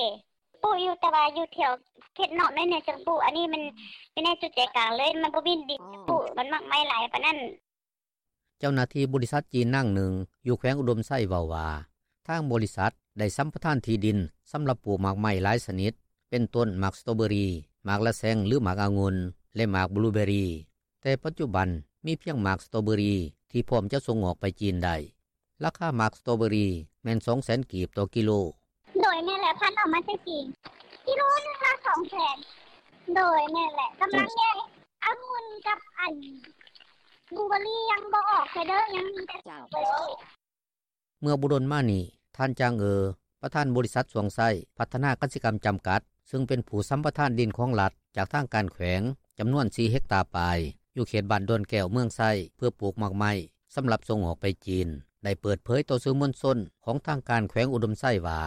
ປູກຢູ່ ແຕ່ວ່າຢູ່ແຖວເຂດນອກໜ້ອຍໜຶ່ງຈັ່ງປູກ ອັນນີ້ມັນຢູ່ໃນຈຸດໃຈກາງເລີຍ ມັນບໍ່ມີດິນປູກ ມັນໝາກໄມ້ຫຼາຍປານນັ້ນ. ເຈົ້າໜ້າທີ່ບໍລິສັດຈີນນາງໜຶ່ງຢູ່ແຂວງອຸດົມໄຊເວົ້າວ່າ ທາງບໍລິສັດໄດ້ສຳປະທານທີ່ດິນສຳລັບປູກໝາກໄມ້ຫຼາຍຊະນິດ ເປັນຕົ້ນໝາກສະຕໍເບີຣີ, ໝາກລະແຊງ ຫຼືໝາກອະງຸ່ນ ແລະໝາກບລູເບີຣີ, ແຕ່ປັດຈຸບັນມີພຽງໝາກສະຕໍເບີຣີທີ່ພ້ອມຈະສົ່ງອອກໄປຈີນໄດ້. ລາຄາໝາກສະຕໍເບີຣີແມ່ນສອງແສນກີບຕໍ່ກິໂລ. ໂດຍ ແມ່ນແຫຼະ ພັດອອກມາແຕ່ຈີນ ກິໂລໜຶ່ງລະສອງແສນ. ໂດຍ ແມ່ນແຫຼະ ກຳລັງແຍກອະງຸ່ນກັບອັນບລູເບີຣີຍັງບໍ່ອອກເທື່ອເດີ ຍັງມີແຕ່ສະຕໍເບີຣີ. ເມື່ອບໍ່ດົນມານີ້ ທ່ານ ຈາງ ເອີ ປະທານບໍລິສັດຊວງໄຊ ພັດທະນາກະສິກຳຈຳກັດ ຊຶ່ງເປັນຜູ້ສຳປະທານດິນຂອງລັດຈາກທາງການແຂວງ ຈຳນວນສີ່ເຮັກຕາປາຍ ຢູ່ເຂດບ້ານດອນແກ້ວ ເມືອງໄຊ ເພື່ອປູກໝາກໄມ້ສຳລັບສົ່ງອອກໄປຈີນ ໄດ້ເປີດເຜີຍຕໍ່ສື່ມວນຊົນຂອງທາງການແຂວງອຸດົມໄຊວ່າ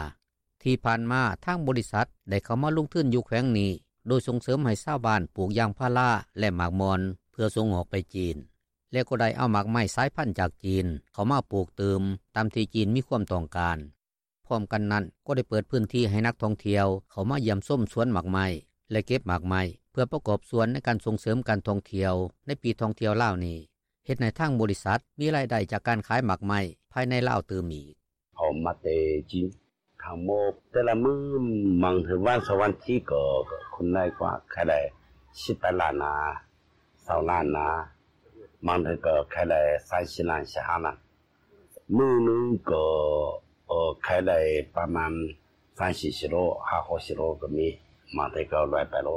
ທີ່ຜ່ານມາທາງບໍລິສັດໄດ້ເຂົ້າມາລົງທຶນຢູ່ແຂວງນີ້ ໂດຍສົ່ງເສີມໃຫ້ຊາວບ້ານປູກຢາງພາລາ ແລະໝາກມ່ອນ ເພື່ອສົ່ງອອກໄປຈີນ ແລະກໍໄດ້ເອົາໝາກໄມ້ສາຍພັນຈາກຈີນເຂົ້າມາປູກຕື່ມ ຕາມທີ່ຈີນມີຄວາມຕ້ອງການ. ພ້ອມກັນນັ້ນກໍໄດ້ເປີດພື້ນທີ່ໃຫ້ນັກທ່ອງທ່ຽວເຂົ້າມາຢ້ຽມຊົມສວນໝາກໄມ້ ແລະເກັບໝາກໄມ້ ເພື່ອປະກອບສ່ວນໃນການສົ່ງເສີມການທ່ອງທ່ຽວໃນປີທ່ອງທ່ຽວລາວນີ້, ເຮັດໃຫ້ທາງບໍລິສັດມີລາຍໄດ້ຈາກການຂາຍໝາກໄມ້ພາຍໃນລາວຕື່ມອີກ. ເອົາມາແຕ່ຈີນ ທັງໝົດແຕ່ລະມື້ ບາງເທື່ອວັນສອງວັນທີກໍ ກໍຄົນໄດ້ກວ່າ ຂາຍໄດ້ສິບແປດລ້ານນາ ຊາວລ້ານນາ ບາງເທື່ອກໍຂາຍໄດ້ສາມສີ່ລ້ານ ສີ່ຫ້າລ້ານ ມື້ໜຶ່ງກໍ ເອີ ຂາຍໄດ້ປະມານສາມສີ່ກິໂລ ຫ້າຫົກກິໂລກໍມີ ບາງເທື່ອກໍຮ້ອຍປາຍໂລ.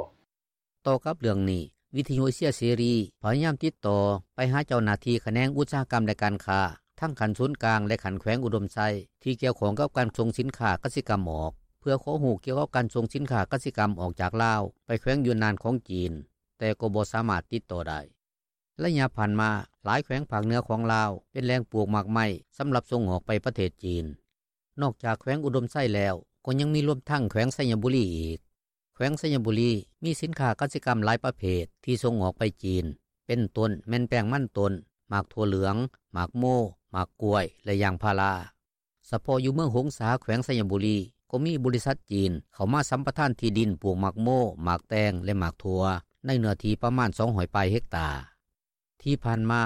ຕໍ່ກັບເລື່ອງນີ້ ວິທຍຸເອເຊຍເສລີພະຍາຍາມຕິດຕໍ່ໄປຫາເຈົ້າໜ້າທີ່ຂະແໜງອຸດສາຫະກຳ ແລະການຄ້າ ທັງຂັ້ນສູນກາງ ແລະຂັ້ນແຂວງອຸດົມໄຊ ທີ່ກ່ຽວຂ້ອງກັບການສົ່ງສິນຄ້າກະສິກຳອອກ ເພື່ອຂໍຮູ້ກ່ຽວກັບການສົ່ງສິນຄ້າກະສິກຳອອກຈາກລາວໄປແຂວງຢູນນານຂອງຈີນ, ແຕ່ກໍບໍ່ສາມາດຕິດຕໍ່ໄດ້. ໄລຍະຜ່ານມາ ຫຼາຍແຂວງພາກເໜືອຂອງລາວເປັນແຫຼ່ງປູກໝາກໄມ້ສຳລັບສົ່ງອອກໄປປະເທດຈີນ. ນອກຈາກແຂວງອຸດົມໄຊແລ້ວ ກໍຍັງມີລວມທັງແຂວງໄຊຍະບູລີອີກ. ແຂວງໄຊຍະບູລີມີສິນຄ້າກະສິກຳຫຼາຍປະເພດທີ່ສົ່ງອອກໄປຈີນ ເປັນຕົ້ນແມ່ນແປ້ງມັນຕົ້ນ, ໝາກຖົ່ວເຫຼືອງ, ໝາກໂມ, ໝາກກ້ວຍ ແລະຢາງພາລາ. ສະເພາະຢູ່ເມືອງຫົງສາ ແຂວງໄຊຍະບູລີ ກໍມີບໍລິສັດຈີນເຂົ້າມາສຳປະທານທີ່ດິນປູກໝາກໂມ, ໝາກແຕງ ແລະໝາກຖົ່ວ ໃນເນື້ອທີ່ປະມານສອງຮ້ອຍປາຍເຮັກຕາ. ທີ່ຜ່ານມາ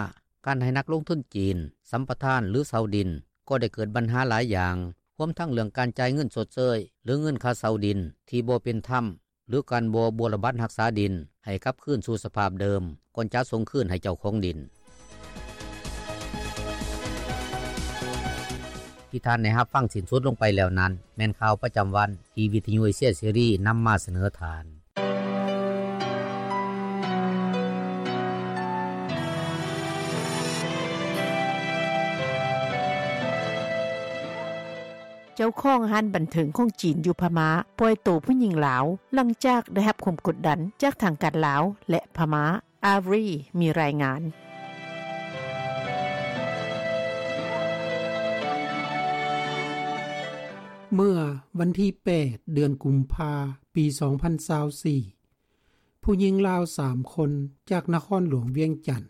ການໃຫ້ນັກລົງທຶນຈີນສຳປະທານ ຫຼື ເຊົ່າດິນ ກໍໄດ້ເກີດບັນຫາຫຼາຍຢ່າງ, ຮວມທັງເລື່ອງການຈ່າຍເງິນຊົດເຊີຍ ຫຼື ເງິນຄ່າເຊົ່າດິນທີ່ບໍ່ເປັນທຳ ຫຼື ການບໍ່ບົວລະບັດຮັກສາດິນໃຫ້ກັບຄືນສູ່ສະພາບເດີມ ກ່ອນຈະສົ່ງຄືນໃຫ້ເຈົ້າຂອງດິນ. ທີ່ທ່ານໄດ້ຮັບຟັງສິ້ນສຸດລົງໄປແລ້ວນັ້ນ ແມ່ນຂ່າວປະຈຳວັນທີ່ວິທະຍຸເອເຊຍເສລີນຳມາສະເໜີທ່ານ. ເຈົ້າຂອງຮ້ານບັນເທີງຂອງຈີນຢູ່ພະມ້າປ່ອຍໂຕຜູ້ຍິງລາວ ຫຼັງຈາກໄດ້ຮັບຄວາມກົດດັນຈາກທາງການລາວ ແລະ ພະມ້າ. ອາຣີ ມີລາຍງານ. ເມື່ອວັນທີແປດ ເດືອນກຸມພາ ປີສອງພັນຊາວສີ່ ຜູ້ຍິງລາວສາມຄົນຈາກນະຄອນຫຼວງວຽງຈັນ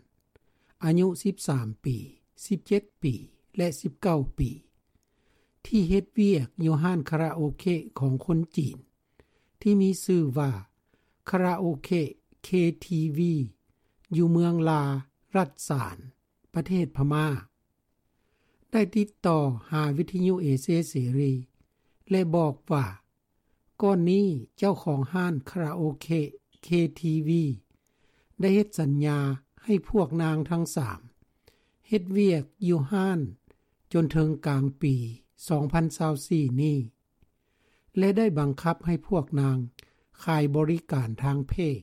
ອາຍຸສິບສາມປີ, ສິບເຈັດປີ ແລະ ສິບເກົ້າປີ ທີ່ເຮັດວຽກຢູ່ຮ້ານຄາຣາໂອເກະຂອງຄົນຈີນ ທີ່ມີຊື່ວ່າ ຄາຣາໂອເກະ ເຄ ທີ ວີ ຢູ່ເມືອງລາ ລັດສານ ປະເທດພະມ້າ ໄດ້ຕິດຕໍ່ຫາວິທະຍຸເອເຊຍເສລີ ແລະ ບອກວ່າ ກ່ອນນີ້ເຈົ້າຂອງຮ້ານຄາຣາໂອເກະ ເຄ ທີ ວີ ໄດ້ເຮັດສັນຍາໃຫ້ພວກນາງທັງສາມເຮັດວຽກຢູ່ຮ້ານຈົນເຖິງກາງປີສອງພັນຊາວສີ່ນີ້ ແລະ ໄດ້ບັງຄັບໃຫ້ພວກນາງຂາຍບໍລິການທາງເພດ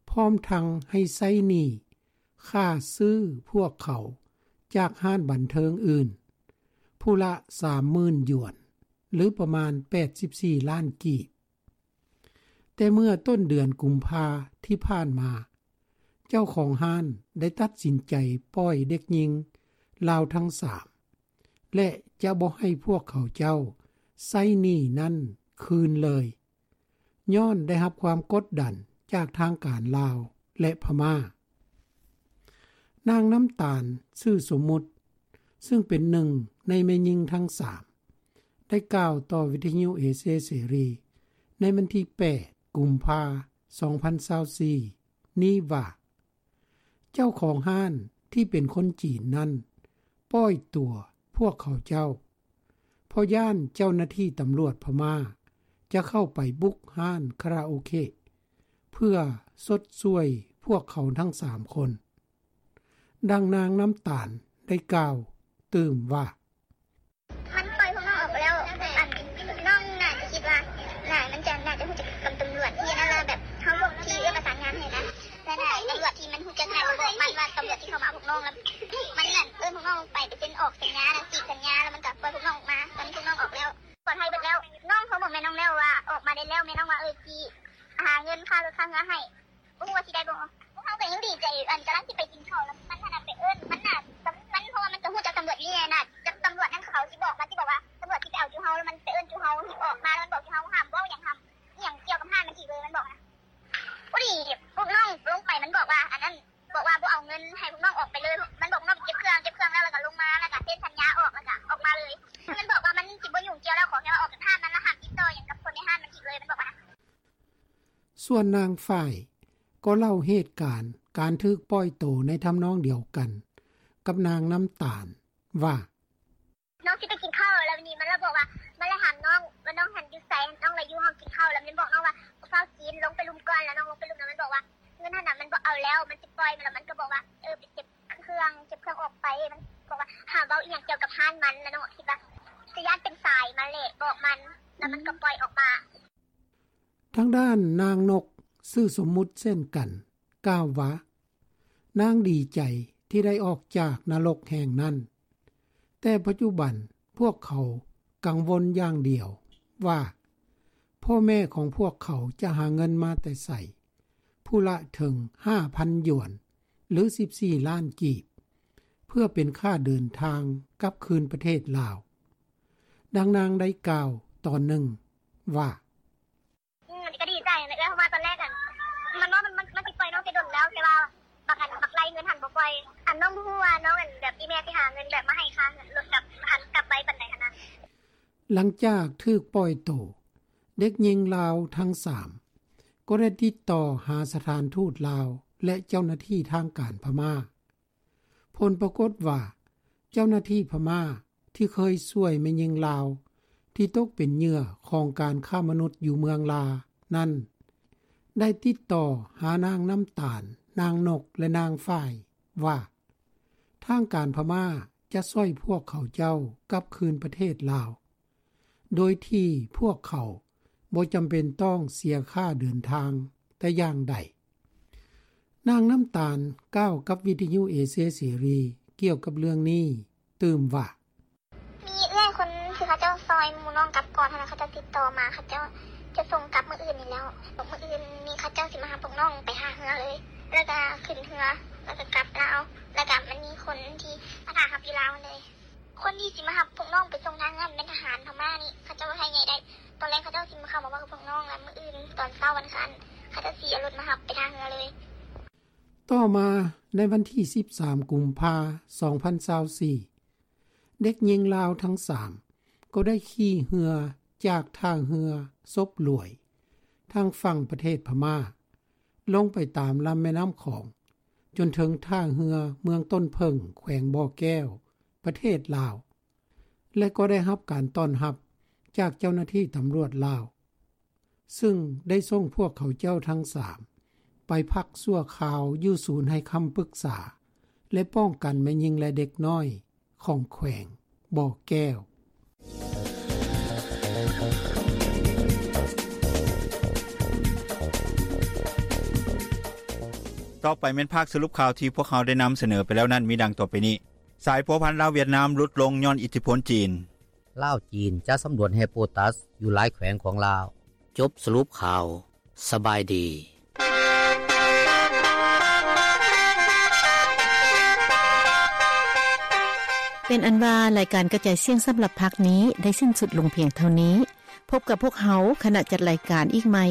ພ້ອມທັງໃຫ້ໃຊ້ໜີ້ຄ່າຊື້ພວກເຂົາຈາກຮ້ານບັນເທີງອື່ນ ຜູ້ລະສາມໝື່ນຢວນ ຫຼື ປະມານແປດສິບສີ່ລ້ານກີບ. ແຕ່ເມື່ອຕົ້ນເດືອນກຸມພາທີ່ຜ່ານມາ ເຈົ້າຂອງຮ້ານໄດ້ຕັດສິນໃຈປ່ອຍເດັກຍິງລາວທັງສາມ ແລະ ຈະບໍ່ໃຫ້ພວກເຂົາເຈົ້າໃຊ້ໜີ້ນັ້ນຄືນເລີຍ ຍ້ອນໄດ້ຮັບຄວາມກົດດັນຈາກທາງການລາວ ແລະ ພະມ້າ. ນາງນ້ຳຕານ ຊື່ສົມມຸດ ຊຶ່ງເປັນໜຶ່ງໃນແມ່ຍິງທັງສາມ ໄດ້ກ່າວຕໍ່ວິທະຍຸເອເຊຍເສລີໃນວັນທີແປດ ກຸມພາ ສອງພັນຊາວສີ່ ນີ້ວ່າ ເຈົ້າຂອງຮ້ານທີ່ເປັນຄົນຈີນນັ້ນປ່ອຍຕົວພວກເຂົາເຈົ້າ ເພາະຢ້ານເຈົ້າໜ້າທີ່ຕຳຫຼວດພະມ້າຈະເຂົ້າໄປບຸກຮ້ານຄາຣາໂອເກະ ເພື່ອຊົດຊ່ວຍພວກເຂົາທັງສາມຄົນ. ດັ່ງນາງນ້ຳຕານໄດ້ກ່າວຕື່ມວ່າ ມັນປ່ອຍພວກນ້ອງອອກໄປແລ້ວ ອັນ ນ້ອງໜ້າຈະຄິດວ່າ ໜ້າ ມັນຈະ ໜ້າຈະຮູ້ຈັກກັບຕຳຫຼວດທີ່ນັ້ນລະ ແບບເຮົາ ທີ່ເອື້ອປະສານງານໃຫ້ນະ ແລະ ໜ້າຕຳຫຼວດທີ່ມັນຮູ້ຈັກ ໜ້າຈະບອກມັນວ່າຕຳຫຼວດທີ່ເຂົ້າມາເອົາພວກນ້ອງ ລະມັນນັ້ນເອີ້ນພວກນ້ອງໄປ ໄປເຊັນອອກສັນຍາ ນະ ຈີບສັນຍາ ລະມັນກະປ່ອຍພວກນ້ອງອອກມາ. ຕອນນີ້ພວກນ້ອງອອກແລ້ວ ປອດໄພເບິດແລ້ວ. ນ້ອງໂທບອກແມ່ນ້ອງແລ້ວວ່າອອກມາໄດ້ແລ້ວ ແມ່ນ້ອງວ່າ ເອີ ຊິຫາເງິນຄ່າລົດຄ່າເຮືອໃຫ້. ບໍ່ຮູ້ວ່າຊິໄດ້ບໍ່. ພວກເຮົາກໍຍັງດີໃຈ ອັນ ກຳລັງຊິໄປກິນເຂົ້າ ລະມັນຫັ້ນນະໄປເອີ້ນ ມັນນະ ມັນ ເພາະວ່າມັນກໍຮູ້ຈັກຕຳຫຼວດນີ້ນະ ຈັກຕຳຫຼວດນັ້ນເຂົາຊິບອກ ມັນຊິບອກວ່າຕຳຫຼວດຊິໄປເອົາຈຸເຮົາ ລະມັນໄປເອີ້ນຈຸເຮົາອອກມາ ລະມັນບອກຈຸເຮົາຫ້າມເວົ້າຫຍັງ ຫ້າມອີ່ຫຍັງກ່ຽວກັບຮ້ານມັນອີກເລີຍ ມັນບອກນະ. ພໍດີພວກນ້ອງລົງໄປ ມັນບອກວ່າ ອັນນັ້ນ ບອກວ່າບໍ່ເອົາເງິນໃຫ້ພວກນ້ອງອອກໄປເລີຍ ມັນບອກນ້ອງເກັບເຄື່ອງ ເກັບເຄື່ອງແລ້ວ ລະກະລົງມາ ລະກະເຊັນສັນຍາອອກ ລະກະອອກມາເລີຍ. ມັນບອກວ່າມັນຊິບໍ່ຫຍຸ້ງກ່ຽວແລ້ວ ຂໍແຄ່ວ່າອອກຈາກຮ້ານມັນ ລະຫ້າມຕິດຕໍ່ຫຍັງກັບຄົນໃນຮ້ານມັນອີກເລີຍ ມັນບອກວ່ານະ. ສ່ວນນາງຝ້າຍກໍເລົ່າເຫດການການຖືກປ່ອຍໂຕໃນທຳນອງດຽວກັນກັບນາງນ້ຳຕານວ່າ ນ້ອງຊິໄປກິນເຂົ້າ ລະບາດນີ້ມັນລະບອກວ່າ ມັນລະຖາມນ້ອງວ່ານ້ອງຫັ້ນຢູ່ໃສ ນ້ອງລະຢູ່ຫ້ອງກິນເຂົ້າ ລະມັນບອກນ້ອງວ່າ ຟ້າວກິນ ລົງໄປລຸ່ມກ່ອນ ລະນ້ອງລົງໄປລຸ່ມ ລະມັນບອກວ່າເງິນຫັ້ນນະມັນບໍ່ເອົາແລ້ວ ມັນຊິປ່ອຍ ລະມັນກະບອກວ່າ ເອີ ໄປເກັບເຄື່ອງ ເກັບເຄື່ອງອອກໄປ ມັນບອກວ່າຫ້າມເວົ້າອີ່ຫຍັງກ່ຽວກັບຮ້ານມັນ ລະນ້ອງຄິດວ່າ ຈະຢ້ານເປັນສາຍມາແຫຼະ ບອກມັນ ລະມັນກະປ່ອຍອອກມາ. ທາງດ້ານນາງນົກ ຊື່ສົມມຸດເຊັ່ນກັນ ກ່າວວ່າ ນາງດີໃຈທີ່ໄດ້ອອກຈາກນະລົກແຫ່ງນັ້ນ, ແຕ່ປັດຈຸບັນພວກເຂົາກັງວົນຢ່າງດຽວວ່າ ພໍ່ແມ່ຂອງພວກເຂົາຈະຫາເງິນມາແຕ່ໃສ ຜູ້ລະເຖິງຫ້າພັນຢວນ ຫຼື ສິບສີ່ລ້ານກີບ ເພື່ອເປັນຄ່າເດີນທາງກັບຄືນປະເທດລາວ. ດັ່ງນາງໄດ້ກ່າວຕອນໜຶ່ງວ່າ ອືມ ກະດີໃຈຫັ້ນແຫຼະ ເອື້ອຍ ເພາະວ່າຕອນແລກຫັ້ນ ມັນວ່າມັນ ມັນ ມັນຊິປ່ອຍນ້ອງແຕ່ດົນແລ້ວ ແຕ່ວ່າບັກອັນ ບັກໄລ່ເງິນຫັ້ນບໍ່ປ່ອຍ ອັນ ນ້ອງບໍ່ຮູ້ວ່ານ້ອງ ອັນ ແບບອີ່ແມ່ຊິຫາເງິນແບບມາໃຫ້ຄ່າເງິນລົດ ແບບ ອັນ ກັບໄວປານໃດຫັ້ນນະ. ຫຼັງຈາກຖືກປ່ອຍໂຕ, ເດັກຍິງລາວທັງສາມກໍໄດ້ຕິດຕໍ່ຫາສະຖານທູດລາວ ແລະ ເຈົ້າໜ້າທີ່ທາງການພະມ້າ. ຜົນປາກົດວ່າ ເຈົ້າໜ້າທີ່ພະມ້າທີ່ເຄີຍຊ່ວຍແມ່ຍິງລາວທີ່ຕົກເປັນເຫຍື່ອຂອງການຄ້າມະນຸດຢູ່ເມືອງລານັ້ນ ໄດ້ຕິດຕໍ່ຫານາງນ້ຳຕານ, ນາງນົກ ແລະ ນາງຝ້າຍວ່າ ທາງການພະມ້າ ຈະຊ່ອຍພວກເຂົາເຈົ້າກັບຄືນປະເທດລາວ ໂດຍທີ່ພວກເຂົາບໍ່ຈຳເປັນຕ້ອງເສຍຄ່າເດີນທາງແຕ່ຢ່າງໃດ. ນາງນ້ຳຕານກ່າວກັບວິທະຍຸເອເຊຍເສລີກ່ຽວກັບເລື່ອງນີ້ຕື່ມວ່າ: ມີເອື້ອຍຄົນທີ່ເຂົາເຈົ້າຊ່ອຍໝູ່ນ້ອງກັບກ່ອນຫັ້ນນະ ເຂົາເຈົ້າຕິດຕໍ່ມາ ເຂົາເຈົ້າຈະສົ່ງກັບມື້ອື່ນນີ້ແລ້ວ. ມື້ອື່ນນີ້ເຂົາເຈົ້າຊິມາຮັບພວກນ້ອງໄປທ່າເຮືອເລີຍ ແລ້ວກະຂຶ້ນເຮືອ ແລ້ວກະກັບລາວ. ແລ້ວກະມັນມີຄົນທີ່ມາຖ້າຮັບຢູ່ລາວເລີຍ. ຄົນທີ່ຊິມາຮັບພວກນ້ອງໄປສົ່ງທ່າເຮືອແມ່ນທະຫານພະມ້ານີ້ ເຂົາເຈົ້າໄທໃຫຍ່ໄດ້. ຕອນແລງເຂົາເຈົ້າຊິມາເຂົ້າມາເວົ້າກັບພວກນ້ອງ ແລ້ວມື້ອື່ນຕອນເຊົ້າວັນອັງຄານ ເຂົາເຈົ້າຊິເອົາລົດມາຮັບໄປທ່າເຮືອເລີຍ. ຕໍ່ມາໃນວັນທີສິບສາມ ກຸມພາ ສອງພັນຊາວສີ່ ເດັກຍິງລາວທັງສາມກໍໄດ້ຂີ່ເຮືອຈາກທ່າເຮືອສົບຫຼວຍ ທາງຝັ່ງປະເທດພະມ້າ ລົງໄປຕາມລຳແມ່ນ້ຳຂອງ ຈົນເຖິງທ່າເຮືອເມືອງຕົ້ນເຜິ້ງ ແຂວງບໍ່ແກ້ວ ປະເທດລາວ ແລະ ກໍໄດ້ຮັບການຕ້ອນຮັບຈາກເຈົ້າໜ້າທີ່ຕຳຫຼວດລາວ ຊຶ່ງໄດ້ສົ່ງພວກເຂົາເຈົ້າທັງສາມໄປພັກຊົ່ວຄາວຢູ່ສູນໃຫ້ຄຳປຶກສາ ແລະ ປ້ອງກັນແມ່ຍິງ ແລະ ເດັກນ້ອຍຂອງແຂວງບໍ່ແກ້ວ. ຕໍ່ໄປແມ່ນພາກສະຫຼຸບຂ່າວທີ່ພວກເຮົາໄດ້ນຳສະເໜີໄປແລ້ວນັ້ນ ມີດັ່ງຕໍ່ໄປນີ້. ສາຍພົວພັນລາວຫວຽດນາມຫຼຸດລົງຍ້ອນອິດທິພົນຈີນ. ລາວ-ຈີນຈະສຳຫຼວດແຮ່ໂປຕັສຢູ່ຫຼາຍແຂວງຂອງລາວ. ຈົບສະຫຼຸບຂ່າວ. ສະບາຍດີ. ເປັນອັນວ່າ ລາຍການກະຈາຍສຽງສຳລັບພາກນີ້ໄດ້ສິ້ນສຸດລົງພຽງເທົ່ານີ້. ພົບກັບພວກເຮົາ ຄະນະຈັດລາຍການອີກໃໝ່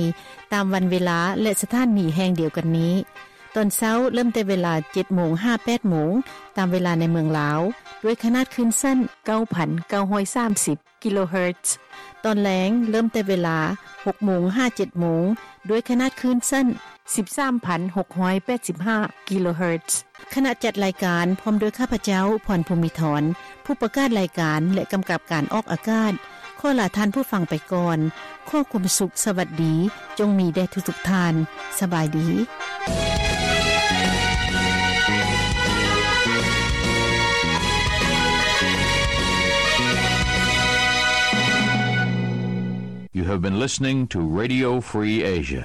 ຕາມວັນເວລາ ແລະ ສະຖານີແຫ່ງດຽວກັນນີ້. ຕອນເຊົ້າເລີ່ມແຕ່ເວລາເຈັດໂມງຫາແປດໂມງ ຕາມເວລາໃນເມືອງລາວ ດ້ວຍຂະໜາດຄື້ນສັ້ນເກົ້າພັນເກົ້າຮ້ອຍສາມສິບ ກິໂລເຮີດ. ຕອນແລງເລີ່ມແຕ່ເວລາຫົກໂມງຫາເຈັດໂມງ ດ້ວຍຂະໜາດຄື້ນສັ້ນສິບສາມພັນຫົກຮ້ອຍແປດສິບຫ້າ ກິໂລເຮີດ. ຄະນະຈັດລາຍການ ພ້ອມດ້ວຍຂ້າພະເຈົ້າ ພອນ ພູມີທອນ ຜູ້ປະກາດລາຍການ ແລະ ກຳກັບການອອກອາກາດ ຂໍລາທ່ານຜູ້ຟັງໄປກ່ອນ. ຂໍຄວາມສຸກສະຫວັດດີ ຈົ່ງມີແດ່ທຸກໆທ່ານ. ສະບາຍດີ. You have been listening to Radio Free Asia.